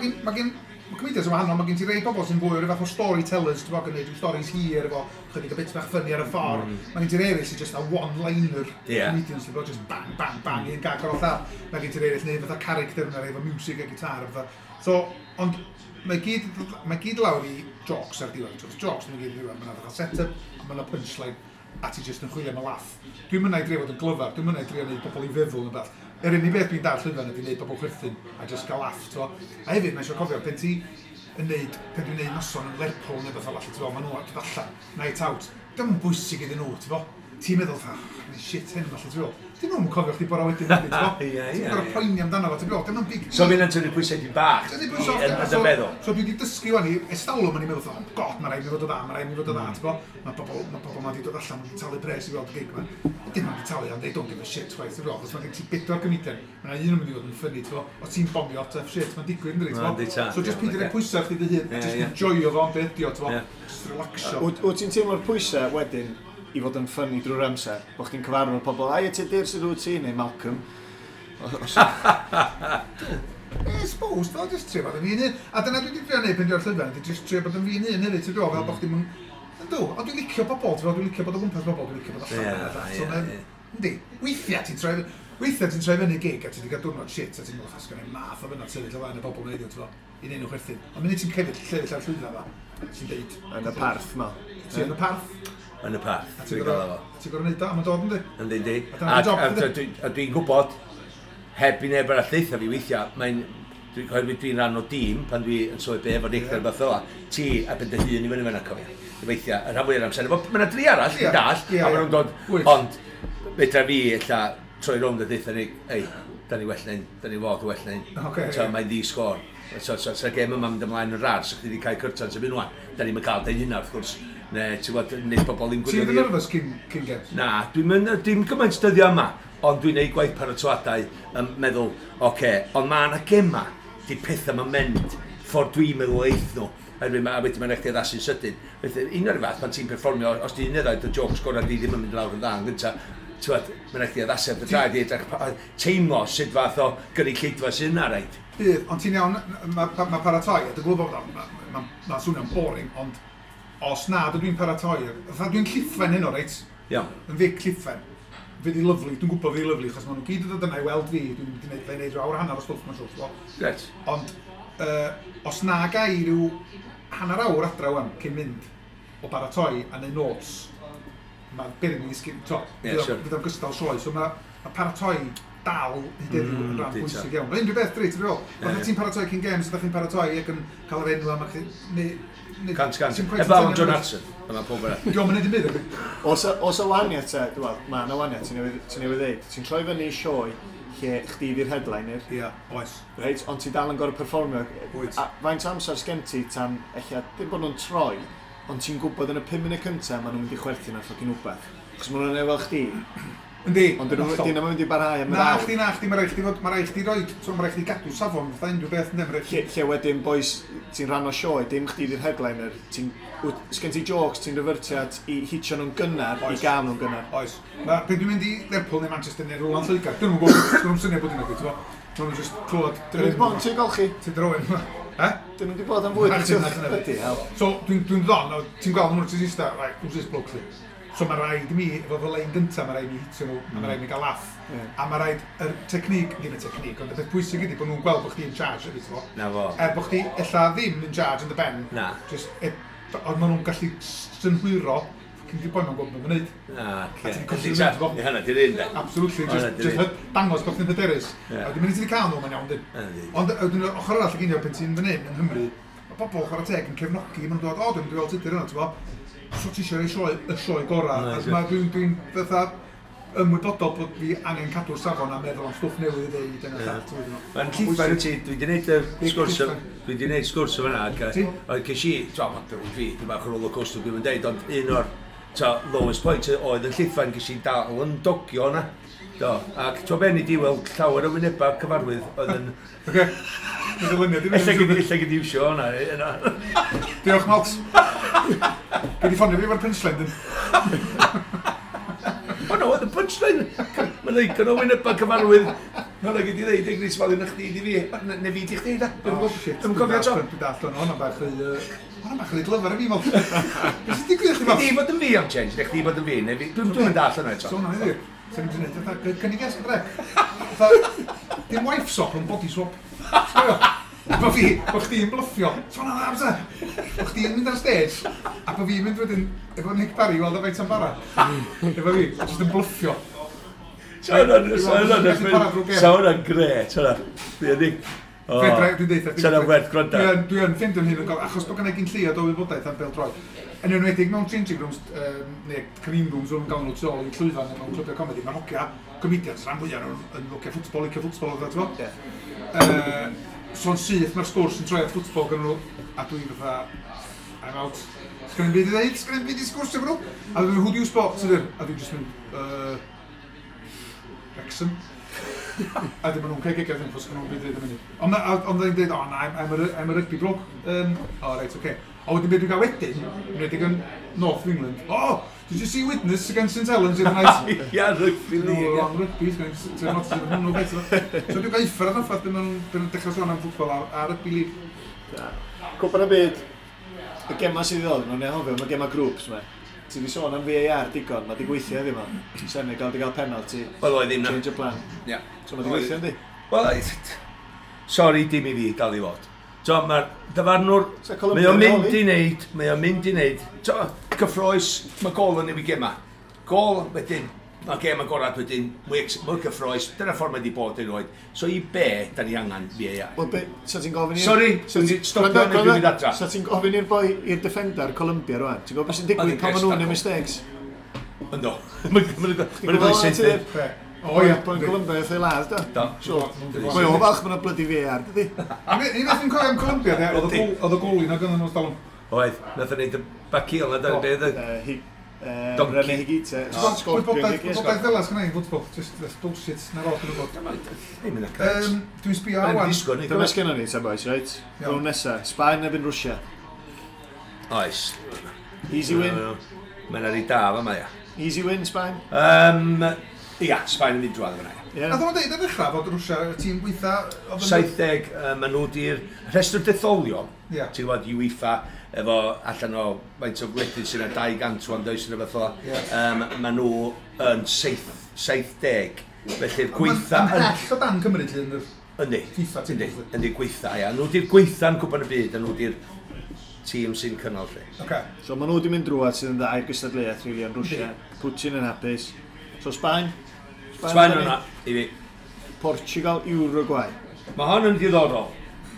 Mae comedians yn wahanol, mae gen ti rei bobl sy'n fwy o ryw fath o storytellers, ti'n bod, yn gwneud rhyw stories hir efo chydig o bits bach funny ar y ffordd. Mae gen ti'r eraill sy'n just a one-liner comedians, ti'n bod, just bang, bang, bang, un gag ar ôl llall. Mae gen ti'r eraill neu fatha character yna, efo music a gitar a fatha. So, ond mae gyd lawr i jokes ar diwedd. So, jokes mae'n gyd i ddiwedd. Mae yna fatha set-up, a mae yna punchline, a ti just yn chwilio am y laff. Dwi'n mynd i drio fod yn glyfar, dwi'n mynd i drio wneud pobl i feddwl yn beth. Yr unig beth dwi'n dar llwyfan ydy wneud pobl chwerthin a just gael laff, ti'n fo. A hefyd, mae eisiau cofio, pen ti yn neud, pen dwi'n neud noson yn Lerpwl neu beth fel allan, ti'n fo, maen nhw dod allan, night out. Dim yn bwysig iddyn nhw, ti'n fo. Ti'n meddwl, fatha, "Oh, shit hyn, falle, ti'n fo. Dyn nhw'n cofio chdi bora wedyn, ti'n fo.
Ie,
Ti'n gorfod poeni amdano fo, ti'n fo. Dim yn big
So fi'n tynnu pwysau di bach
Dyna pwysau
yn dy feddwl.
So dwi wedi dysgu wan i estalwm yn i meddwl, oh God, mae rhaid mi fod o dda, mae rhaid mi fod o dda, ti'n bo? Mae pobl ma wedi dod allan, wedi talu pres i weld y gig ma. Dim ond wedi talu, ond they don't give a shit chwaith, ti'n bo? Achos mae gen ti bedwar comedian, mae yna un yn mynd i fod yn funny, ti'n bo? Os ti'n bomio, tough shit, mae'n digwydd, ynddi, ti'n
Ma'n di
bo?
ta,
So just
iawn,
peidio rhoi
ocê.
pwysau chdi dy hun, just enjoyo fo am beth ydi o, ti'n bo? Just relaxio.
Wyt ti'n teimlo'r pwysau wedyn i fod yn funny drwy'r amser? Bo chdi'n cyfarfod pobl, ai, ti Tudur, sydd wyt ti, neu Malcolm?
I suppose, though, Just trio bod yn fi'n hun. A dyna dwi wedi trio neud pan dwi ar llwyfan, dwi just trio bod yn fi'n hun hefyd, ti'n gwybod, fel bod chdi'm yn. Yndw, ond dwi'n licio bobl, ti'n gwybod, dwi'n licio bod o gwmpas bobl, dwi'n licio bod allan. So, yndi, weithiau ti'n troi fyny gig a ti wedi cael diwrnod shit a ti'n meddwl, "Sgan i'm math o fyna sefyll o flaen y bobl neud, ti'n gwybod, i neud nhw chwerthin." Ond munud ti'n cefyd sefyll ar llwyfan fa, ti'n deud,
Yn y parth ma.
Ti yn y parth,
Yn y parth.
a ti'n
Dwi'n gael
gorau
efo.
ti'n gorau neud o, a mae'n dod, yndi?
Yndi, yndi.
A dyna dy job,
A
yndi?
dwi'n gwybod, heb i neb arall deutha fi weithiau, mae'n... Dwi'n oherwydd dwi'n rhan o dîm pan dwi yn sôn be efo Nick neu rhywbeth fel 'a, ti a ben dy hun i fyny fyna, cofio. Weithiau, y rhan fwyaf o'r amser. Mae yna dri arall, dwi'n dall, a maen nhw'n dod, ond fedra fi ella troi rownd a deutha ni, "Ei, da ni well na hyn, da ni fod yn well na hyn."
Ocê,
So,
ie.
mae'n ddi sgôr. So gêm yma'n mynd ymlaen yn rar, so chdi wedi cael cyrtans yn mynd wan. Da ni'n cael deud hynna, wrth gwrs. Ne, ti'n gwybod, nid bobl ddim
Ti'n
gwylio
mynd yn
fi.
nervous cyn games?
Na, dwi'n mynd, dim gymaint dyddiau yma, ond dwi'n neud gwaith paratoadau yn meddwl, oce, ond mae yna gema, di pethau ma'n mynd, ffordd dwi'n meddwl eith nhw. Oherwydd a wedyn mae'n rhaid i addasu'n sydyn. Felly, un o'r fath, pan ti'n perfformio, os ti'n un ddau, dy jokes gorau di ddim yn mynd lawr yn dda yn gynta, ti'n gwbod, mae'n rhaid i addasu ar dy draed i edrych, teimlo sut fath o gynulleidfa sydd yna, reit?
Bydd, ond ti'n iawn, mae ma paratoi, a dwi'n gwybod bod o'n ma swnio'n boring, ond os na, dydw i'n paratoi, fatha dwi'n Llithfaen heno, reit? Yn Vic Llithfaen. Fydd hi lyfli, dwi'n gwybod fydd hi lyfli, achos maen nhw gyd yn dod yna i weld fi, dwi'n mynd i wneud, wneud rhyw awr a hanner o stwff, mae'n siŵr, ti'n gwbod? Ond, os na ga i ryw hanner awr adra wan, cyn mynd o baratoi a neud notes, mae beryg i ddisgyn, to,
Ie, siwr.
fydd o'n gystal sioe, so mae ma paratoi dal hyd heddiw yn rhan bwysig iawn. Mae unrhyw beth, dri, ti'n feddwl? Fatha ti'n paratoi cyn games, ydych chi'n paratoi ac yn cael yr enw am chi
100%.
Ti'n cweit
Eblaw am
yn
John
teimlo-
Hartson, a mae pob arall.
Dio'm yn neud dim byd, ydi?
Os y wahaniaeth te, dwi'n meddwl, mae yna wahaniaeth, ti'n newydd ddeud. Ti'n troi fyny i sioe lle chdi di'r headliner,
Ia, oes.
reit, ond ti dal yn gorfod perfformio.
Wyt.
A faint o amser sgen ti tan, ella, dim bod nhw'n troi, ond ti'n gwybod yn y 5 munud cyntaf maen nhw'n mynd i chwerthin ar ffocin wbeth. Achos maen nhw'n efo chdi,
Yndi.
ond dyn nhw'n
hollol.
dyn nhw'n mynd i barhau am yr
Na
awr.
chdi, na chdi, mae rhaid chdi fod, mae rhaid chdi roid, so mae rhaid chdi gadw safon fatha unrhyw beth, ynddi, mae rhaid chdi.
Lle wedyn, boys, ti'n rhan o sioe, dim chdi di'r headliner, ti'n, sgen ti jokes, ti'n refertio at i hitio nhw'n gynnar, i gael nhw'n gynnar.
Oes. Ma, pryd dwi'n mynd i Lerpwl neu Manchester neu rhywle yn Lloegr, dyn nhw'n gwybod, dyn nhw'n syniad bod yna, ti'n gwybod? Maen nhw'n just clywed
Dyn nhw wedi bod yn tŷ golchi,
Ti'n drywyn. Eh?
dyn nhw wedi bod am fwyd
Na
yn
chdi,
tŷ
na chdi.
Bloody hell.
So, dwi'n ddon, a ti'n gweld nhw'n ti'n eista, right, who's this bloke, li? So mae rhaid i mi, efo fy lein gyntaf, mae rhaid i mi hitio nhw, a mae rhaid i mi gael laff. A mae rhaid, yr technique, ddim y technique, ond y peth pwysig ydy bod nhw'n gweld bod chdi in charge, ydy, ti'n gwbod?
Na fo.
Er bod chdi ella ddim in charge yn dy ben.
Na.
Just, ond maen nhw'n gallu synhwyro, fucking di boi ma'n gwybod beth ma'n neud.
Na,
A
ce.
ti'n colli fynd, bo.
Ie, hynna, di'r un, de.
Absolutely,
O,
just,
na,
just dangos bod chdi'n hyderus.
Ie.
A wedyn mynd i ti wedi cael nhw, mae'n iawn, dyn.
Yndi.
Ond wedyn yr ochr arall y ginio, pen ti'n fan hyn yng Nghymru, mae pobl chwarae teg yn cefnogi, maen nhw'n dod, "O, dwi'n mynd i weld Tudur yna," ti'n bo? So ti eisiau rhoi sioe, y sioe gorau.
Na,
A
sure.
Dwi'n fatha ymwybodol bod fi angen cadw'r safon a meddwl am stwff newydd i ddeud yn y llall. Ti'n gwbod?
Mae'n Llithfaen wyt ti, dwi wedi gwneud y
Big
sgwrs,
Llithfaen.
dwi wedi gwneud sgwrs o fyna, ac
Ti?
oedd ces i, ti'n gwbod, fi, dwi'n bach o roller coaster dwi'n deud, ond un o'r t'o, lowest point oedd yn Llithfaen, ces i dal yn dogio yna. Do, ac ti'n ben i di weld llawer o wynebau cyfarwydd oedd yn
Oce. Mae'n ddylyniad i fi.
Ella gyd i iwsio hwnna. Yna.
Diolch, Malt. Gei di ffonio fi efo'r punchline, dyn.
O no, oedd y punchline. Mae'n ddigon o wynebau cyfarwydd. Mae'n gyd i ddeud, Ignis, fel un chdi di fi. Ne fi di chdi, da.
Oh, shit.
Dwi'n cofio eto.
Dwi'n dallt hwnna, hwnna'n bach rhy glyfar i fi, Malt. Beth sy'n digwydd i chdi, Malt?
Chdi bod yn fi am change, neu chdi bod yn fi, neu fi. Dwi'n dallt hwnna eto.
So hwnna heddiw. Sa'n ni'n gwneud, fatha, cynnig es, dre. Fatha, dim wife swap, ond body swap. Sgwio? Bo fi, bo chdi'n bluffio. So hwnna'n dda, fysa. Bo chdi'n mynd ar stage, a bo fi'n mynd wedyn, efo Nick Barry, i weld o faint am bara. Efo fi, just yn bluffio.
Sa hwnna'n gret, hwnna. Dwi'n Nick.
Fedra, dwi'n deud,
Sa hwnna'n werth gwrando.
Dwi yn ffeindio'n hun yn gofyn, achos bod gennau gyn lleiad o wybodaeth am bêl-droed. Yn enwedig mewn changing rooms, neu green rooms, o'n gael nhw tu ôl i llwyfan neu mewn clybiau comedi, mae'r hogia comedians rhan fwyaf nhw'n yn hogia ffwtbol, licio ffwtbol, oedd ti'n
Ie.
So'n syth mae'r sgwrs yn troi at ffwtbol gan nhw, a dwi fatha, "I'm out. Sgen i'm byd i ddeud, sgen i'm byd i sgwrsio efo nhw." A dwi'n, "Who do you support?" Sydd? A dwi'n just mynd, "Wrexham." A dim nhw'n cael gegau ddim, chos nhw'n byd yn mynd. Ond ond o'n dweud, "Oh, na, I'm a rugby bloke." Oh, right, okay. A wedyn beth dwi'n cael wedyn, yn enwedig yn North of England, "Oh, did you see Widnes against St Helens the other night?"
Ia, rugby
No,
league.
wrong rugby, so hwnnw beth. So dwi'n gael uffar ar ffaith beth nhw'n dechrau sôn am ffwtbol a rugby league.
Cwpan y Byd, y gema sydd i ddod, mae'n anghofio, mae gema grŵps ma. Ti wedi sôn am VAR digon, mae di gweithio heddiw ma. Senegal di gael penalty,
Wel, oedd ddim na.
change of plan.
Ia.
So mae di gweithio, yndi?
Wel, sorry, dim i fi dal i fod. So, mae'r dyfarnwr,
So,
mae
Colombia
o'n
yn
mynd
holi?
i wneud, mae o'n mynd i wneud, so, cyffroes, mae gol yn newid gema. Gol, wedyn, mae gem agorad wedyn, mwy cyffroes, dyna ffordd mae wedi bod erioed. So i be, da ni angen VAR?
Wel, be, so ti'n gofyn i'r
Sorry, dwi'n di stopio
Gwrando,
neu dwi'n mynd
gwrando.
adra.
So ti'n gofyn i'r boi, i'r defender Colombia rwan? Ti'n gwybod beth sy'n digwydd
Oedd
pan
hi'n
maen nhw'n
grêt,
neud mistakes?
Ynddo. Mae'n
Ti'n
gweld
gwybod
syth.
Be? O ia.
Boi'n Colombia wrth ei ladd, do.
Do.
So, mae o falch mae'n bloody VAR, dydi?
Un beth dwi'n cofio am Colombia, de, oedd y goli na gynnu nhw'n stalwm.
Oedd, nath o'n neud y bacil na, dyna beth oedd. Donkey.
René Higuita. Scorpion
Gwybodaeth
Higuita.
gwybodaeth fel sgynna i'n ffwtbol, just that's bullshit, na'r oll dwi'n gwybod.
Ddim yn y cret.
Dwi'n sbio
Mae'n
awan.
disgo ni.
Dyma sgynnon ni, ta boys, reit?
Iawn.
Rownd nesa, Sbaen erbyn Rwsia.
Oes.
Easy win.
Mae'n ar ei da fa ma, ia.
Easy win, Sbaen.
Ia, Sbaen yn mynd drwadd fyna, ia.
Yeah.
Nath o'n deud ar ddechrau fod Rwsia y tîm gweitha oedd yn
70, maen nhw di'r rhestr detholion,
Ie.
ti'n gwybod, UEFA, efo allan o faint o gwledydd sy'n 200 wan does yn rhywbeth fel.
Ie.
Maen nhw yn 70, felly'r gweitha
Yn
yn
bell o dan Cymru, lle yn yr
Yndi.
FIFA team,
Yndi,
obviously.
yndi gweitha, ia. Nhw di'r gweitha'n Cwpan y Byd, a nhw di'r tîm sy'n cynnal lle.
Oce.
So maen nhw wedi mynd drwad sydd yn dda i'r gystadleuaeth, really, yn Rwsia. Putin yn hapus. So Sbaen.
Sbaen
fyny.
yna, i fi.
Portugal, Uruguay.
Mae hon yn ddiddorol,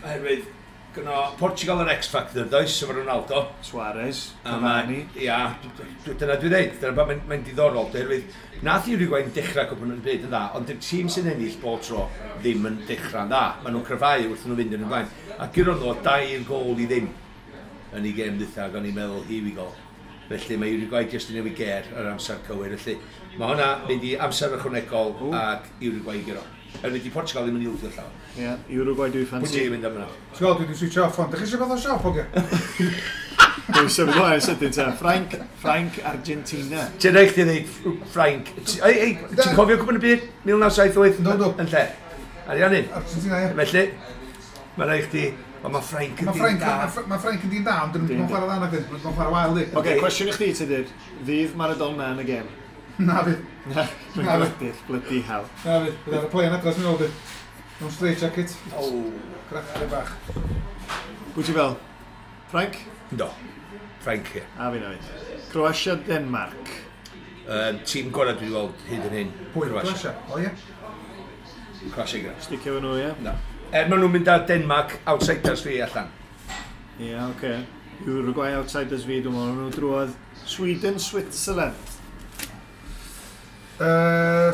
oherwydd gyno Portugal yr X-Factor, does, efo Ronaldo.
Suarez,
A
Cavani.
Ia, dyna dwi'n dweud, dyna mae'n mae diddorol, oherwydd nath Uruguay'n dechrau Cwpan y Byd yn dda, ond dy'r tîm sy'n ennill bob tro ddim yn dechrau'n dda. Maen nhw'n cryfhau wrth nhw fynd yn y blaen. A gyro nhw 2-0 yn ei gêm ddwytha, ac o'n i'n meddwl, here we go. Felly mae Uruguay jyst yn newid ger ar amser cywir. Felly mae hwnna mynd i amser ychwanegol ac Uruguay i guro. Erwydd di Portugal ddim yn ildio llawer.
Ie, yeah, Uruguay dwi'n
Pwy
ffansi.
ti'n mynd am hwnna?
Ti'n gweld, dwi wedi switch off ond. Dych chi eisiau bod o siop, oge?
Dwi'n symud ymlaen sydyn ta. Ffrainc, Ffrainc, Argentina.
Ti'n rhaid chdi ddeud Ffrainc. Ei, ei, ti'n cofio Cwpan y Byd 1978?
Yndw, yndw.
Yn lle? Ariannin.
Argentina, ie.
Felly, mae'n rhaid chdi... Ond mae Ffrainc yn
Mae
dyn
Ffrainc,
da.
ma Ffrainc yn dyn da, ond dyn nhw'n chwarae dda nag dyn. Maen nhw'n chwarae wael, di.
Oce, cwestiwn i chdi, Tudur. Fydd Maradona yn y gêm?
Na fi.
Na, dwi'n
Na, fi.
gwydyll, bloody hell.
Na fi. Bydd ar y plane adres mi'n ôl, di. Mewn straight jacket.
O.
Cracre bach.
Pwy ti fel? Ffrainc?
Ynddo. Ffrainc, ie.
A fi na fi. Croatia, Denmark.
Tîm gorau dwi wedi weld hyd yn hyn.
Pwy?
Croatia.
Croatia. O ie.
Croatia gyda.
Sticio fo nhw, ie?
Na. Er maen nhw'n mynd â Denmark outsiders fi allan.
Ie, yeah, oce. Okay. Uruguay outsiders fi, dwi'n meddwl nhw drwodd. Sweden, Switzerland.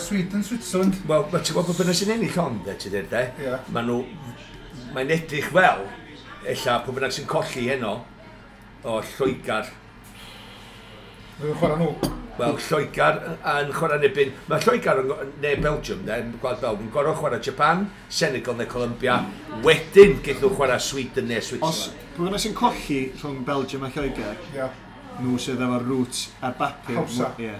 Sweden, Switzerland.
Wel, ma' ti'n gwybod bod bynnag sy'n ennill hon, de, ti'n dweud, de?
Ie.
Maen nhw... Mae'n edrych fel, ella, pwy bynnag sy'n colli heno, o Lloegr.
Dwi'n chwarae nhw.
Wel, Lloegr yn chwarae yn erbyn... Mae Lloegr yn, neu Belgium, de, yn Gwlad Belg, yn gorfod chwarae Japan, Senegal neu Colombia. Wedyn, geith nhw chwarae Sweden neu
Os
Switzerland.
pwy bynnag sy'n colli rhwng Belgium a Lloegr,
Ie.
nhw sydd efo'r roots ar bapur.
Hawsa.
Ie.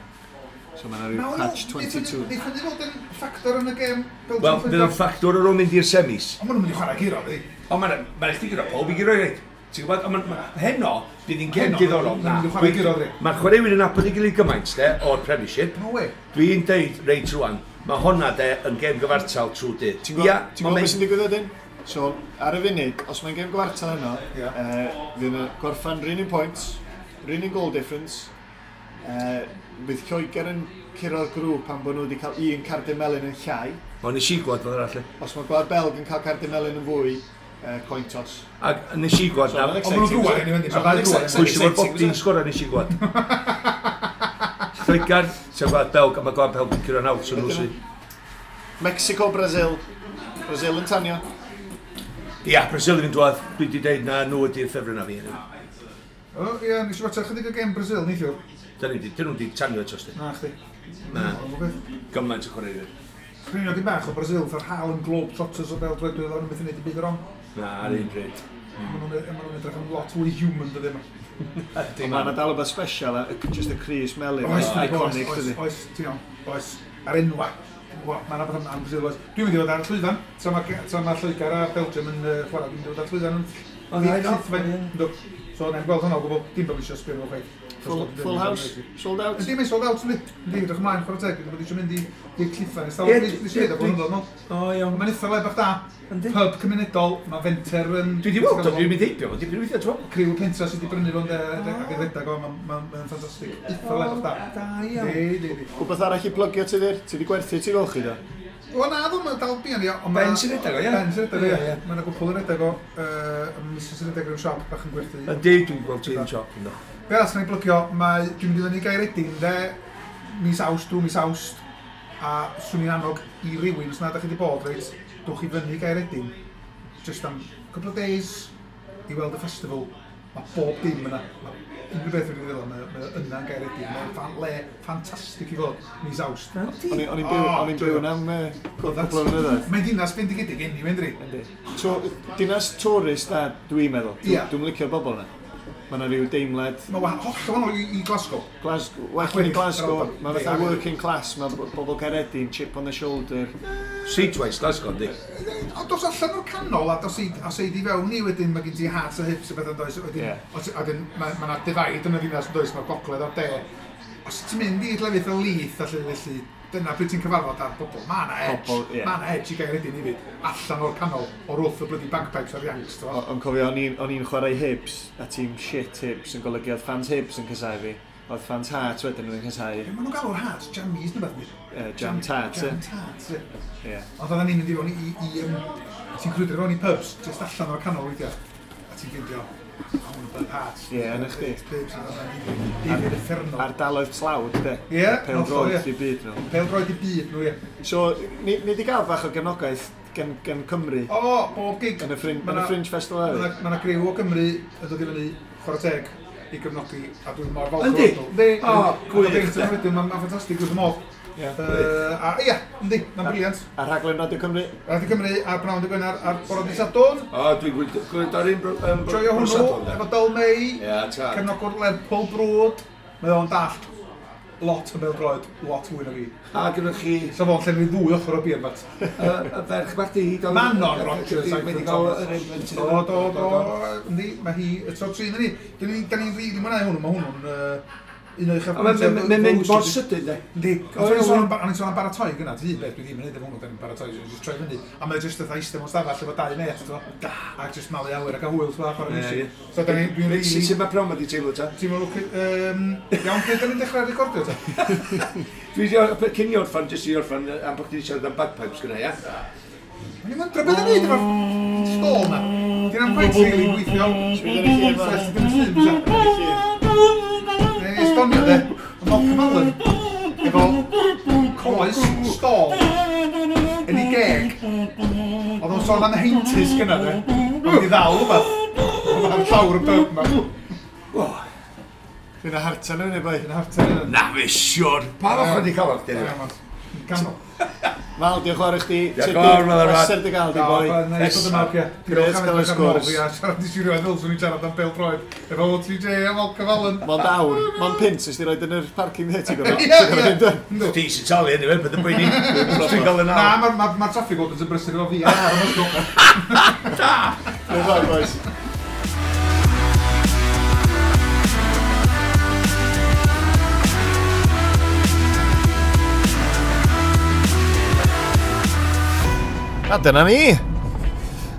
So mae'n rhyw catch 22.
Neith hynny fod yn ffactor yn y gêm Belgium
Wel, fydd o'n ffactor ar ôl mynd i'r semis.
Ond maen nhw'n mynd i chwarae guro, di.
Ond mae'n ma chdi gyda pob i guro i reit. Ti'n gwybod, ond heno, bydd hi'n gêm
Heno,
diddorol.
maen nhw'n mynd i chwarae guro, ddi.
Mae'r chwaraewyr yn nabod ei gilydd gymaint, de, o'r Premiership.
No way.
Dwi'n deud reit rwan, mae honna de yn gêm gyfartal trwy dydd.
Ti'n gwybod,
Ia,
ti'n gwybod beth sy'n digwydd wedyn? So, ar y funud, os mae'n gêm gwartal heno,
Ie.
fydd yn gorffan run un points, run un goal difference, fydd Lloegr yn curo'r grŵp pan bod nhw wedi cael un cardyn melyn yn llai.
Ond nes i gweld fel arall.
Os mae Gwlad Belg yn cael cardyn melyn yn fwy, coin toss.
Ac nes i gweld
So,
na...
ma'n
Ond maen nhw'n
exciting,
drwad,
is it?
anyway, yndi?
So,
Ma'r
ma'n
ddau drwad,
Pwy sy'n fod
exciting,
Bobby'n
is it?
sgoro nes i gweld. Lloegr, sef Gwlad Belg, a mae Gwlad Belg yn curo'n awt, so nhw sy'n...
Mexico, Brazil. Brazil yn tanio.
Ia, Brazil yn mynd drwadd. Dwi wedi deud na nhw ydy'r ffefryn na fi.
O, ie, nes i watcha chydig o gêm Brazil neithiwr.
Dyn nhw wedi tanio eto, sti.
Na, chdi.
Na.
Ond o beth.
Gymaint o chwaraewyr.
Sgrinio dim bach o Brazil, fatha'r Harlem Globetrotters o bêl-droed, dwi'n meddwl, beth yn neud i byd o'r wrong.
Na, ar un pryd.
Maen nhw'n edrych yn lot fwy human, dydyn nhw.
Ond mae yna dal rhywbeth special, just y crys melyn,
Oes,
iconic,
oes,
dydy.
oes, ti'n iawn, oes, ar enwa. Mae yna beth am Brazil, oes. Dwi'n mynd i fod ar y llwyfan, tra ma Lloegr a Belgium yn chwarae, dwi'n mynd i fod ar y llwyfan yn
O, dda, iawn.
Llithfaen, yndw. So, na'n gweld hwnna o gwbl, dim bod fi eisiau sbio nhw chwaith.
Full house, sold out.
Yndi, mae'n sold out, yndi. Yndi, edrych ymlaen, chwarae teg, dwi'n bod eisiau mynd i'r Llithfaen. Ers
Ie,
talwm, nes i weud o blynyddoedd nôl.
O, iawn.
Mae'n eitha le bach da.
Yndi.
Pub cymunedol, mae fenter yn...
Dwi wedi weld o, dwi'n mynd heibio, dwi'n mynd weithio, ti'n
Criw y pentra sydd wedi brynu fo'n de, ac yn redag o, mae'n ffantastig. Eitha le bach da.
Da iawn.
Yndi, yndi, yndi.
Wbeth arall i plygio ti ddir? Ti wedi gwerthu ti golchi do?
O na, dwi'n meddwl dal buan ni. ond
Ben sy'n redag o, ie?
Ben sy'n redag o,
Ie,
ie.
ie.
Mae yna gwpl yn redag o, Mrs yn redag rhyw siop bach yn gwerthu.
Yndi, dwi'n gweld ti'n siop ynddo.
Be arall sy'n ei blygio, mae, dwi'n mynd i fyny i Gaeredin, de, mis Awst, drwy mis Awst, a swn i'n annog i rywun, os na da chi wedi bod, reit, dwch i fyny i Gaeredin, just am couple of days, i weld y festival, mae bob dim yna. Mae unrhyw beth wedi ddilyn, mae yna yn Gaeredin, mae'n le ffantastig i fod, mis Awst.
O'n i'n byw,
O,
o'n i'n byw yna am cwpl o flynyddoedd.
Mae'n dinas bendigedig anyway, ynddi?
Yndi. So, dinas tourist da, dwi'n meddwl.
Ie.
Dwi'n licio'r bobl yna. Mae yna rhyw deimlad
Mae holl wahanol i Glasgow.
Glasgow, well yn
Wedyn,
Glasgow,
yr Alban.
mae fatha
Yndi,
working class, mae bobl Caeredin, chip on the shoulder.
Streetwise, Glasgow, yndi.
Ond dos allan o'r canol a dos i, os ei di fewn i wedyn mae gen ti hearts a hips a beth yn does. Wedyn,
Ie.
os, a wedyn mae ma 'na divide yn y ddinas yn does, mae'r gogledd a'r de. Os ti'n mynd i lefydd fel Leith a lle felly, dyna pryd ti'n cyfarfod ar bobl. Mae 'na edge,
Pobl, ie.
mae 'na edge i Gaeredin hefyd, allan o'r canol, o'r wrth y bloody bagpipes a'r Yanks. t'mo'.
Ond cofio, o'n i'n chwarae Hibs, a tîm shit Hibs yn golygu oedd fans Hibs yn casau fi. Oedd fans Hearts wedyn yn casau
Be maen nhw'n galw'r hearts? Jammies neu beth?
Jam Tarts,
Jam
ie.
tarts, ie.
Ie.
Ond oedden ni'n mynd i fewn ti'n crwydro fewn i pubs, just allan o'r canol weithiau, a ti'n ffeindio, o, hwn yn pub Hearts.
Ie, yn y chdi.
Pubs, David Uffernol.
Ardaloedd tlawd, de.
Ie,
Pêl
hollol,
droed
ie.
i byd nhw.
Pêl-droed i byd nhw, ie.
So, ni di gael bach o gefnogaeth gen Cymru
O, bob gig.
yn y Fringe,
Ma'
yn y
'na-
Fringe Festival
Mae
hefyd.
yna griw o Gymru yn dod i fyny chwarae teg i gefnogi, a dwi'n mor falch.
Yndi?
o'r nhw. Yndi.
O, gwych, de.
Wedyn, mae'n ffantastig wrth y modd.
Ie.
A ia, yndi, mae'n briliant.
A rhaglen Radio Cymru.
Radio Cymru ar Bnawn dy Gwener ar bore dydd Sadwrn.
O, dwi'n gwylio ar un...
Joio hwnnw, efo Dyl May,
Ie, ta.
cefnogwr Lerpwl brwd. Mae o'n dallt lot o bêl-droed, lot fwy na fi.
A gyda chi
So fo'n llenwi ddwy ochr o beer mat.
y ferch bach di...
Manon Rogers,
Wedi cael yr un blentyn.
Do, do, do, yndi, mae hi, y tro tri ni. Da ni'n rili mwynhau hwnnw, mae hwnnw'n un o'i
A Mae'n mynd mor sydyn, de.
Yndi,
O,
ond
iawn.
o'n i'n sôn am baratoi gyna, ti un beth dwi ddim yn neud efo hwnnw, da ni'n baratoi, jyst troi fyny. A mae jyst fatha eistedd mewn stafell efo dau met, t'mo. A jyst malu awyr ac a hwyl, t'mo, a chwarae
Ie,
music.
ie.
So da ni, dwi'n rili...
Sut mae prom wedi teimlo ta?
Ti'n meddwl, iawn, pryd da ni'n dechrau recordio ta?
Dwi wedi, cyn i orffan, jyst i orffan, am bod chdi wedi siarad am bagpipes gyda, ia?
O'n i'n wondro beth yn neud efo'r stôl na. Di'n am quite really gweithio.
Sbia ar y llun
So,
ma.
dim llun, sa. Neu esbonio de, mae Malcolm Allen efo coes stôl yn ei geg. Oedd o'n sôn am heintus gyna de. Oedd wedi ddal rhywbeth. Oedd ar llawr y pub ma.
Dwi'n hartan yn ei boi.
Yn hartan yna.
Na fe siwr. Pa fath wedi cael ar dyn?
Canol.
Mal, diolch yn fawr i chdi.
Diolch yn fawr, Mal, Arfad.
Pleser dy gael di, boi.
Neis bod yma, oce.
Grêt cael y sgwrs.
Fi a siarad i siwrio ddylswn i'n siarad am bêl-droed. Efo OTJ a Malcolm Allen.
Mond awr, mond pint, ys di roed yn yr parking there, ti'n gwybod?
Ie, ie. Yndw.
Ti sy'n talu anyway, bydd yn poeni. Dwi'n gael yn
Na,
awr.
mae'r ma traffic wardens yn brysur efo fi ar y ysgol.
Diolch yn fawr, boys. A dyna ni.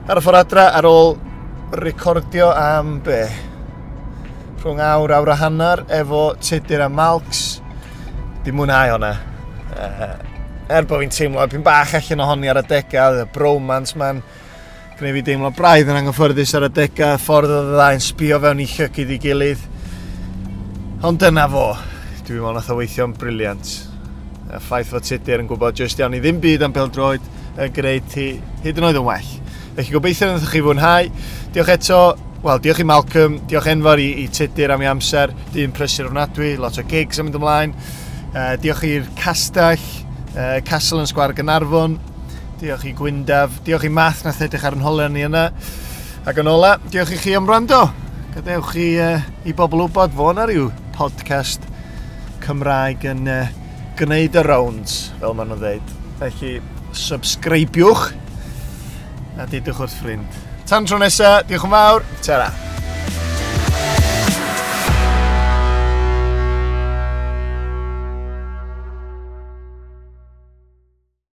Ar y ffordd adra, ar ôl recordio am be? Rhwng awr, awr a hanner, efo Tudur a Malcs. Di mwynhau hwnna. Er bod fi'n teimlo pyn bach allan ohoni ar adegau, y bromance man, gwneud fi deimlo braidd yn anghyffyrddus ar adegau, ffordd oedd y ddau'n sbio fewn i llygid i gilydd. Ond dyna fo. Dwi'n meddwl nath o weithio'n briliant. Y ffaith fod Tudur yn gwybod jyst iawn i ddim byd am bêl-droed yn gwneud ti hyd yn oed yn well. Felly gobeithio wnaethoch chi fwynhau. Diolch eto, wel, diolch i Malcolm, diolch enfawr i Tudur am ei amser, dyn prysur ofnadwy, lot o gigs yn mynd ymlaen. Diolch i'r castell, Castle yn Sgwâr Gaernarfon, diolch i Gwyndaf, diolch i Math nath edrych ar yn holau ni yna. Ac yn ola, diolch i chi am wrando. Gadewch i bobl wybod fo na ryw podcast Cymraeg yn gwneud y rounds, fel maen nhw'n dweud. Felly, subscribiwch a dudwch wrth ffrind. Tan tro nesa, diolch yn fawr, tara.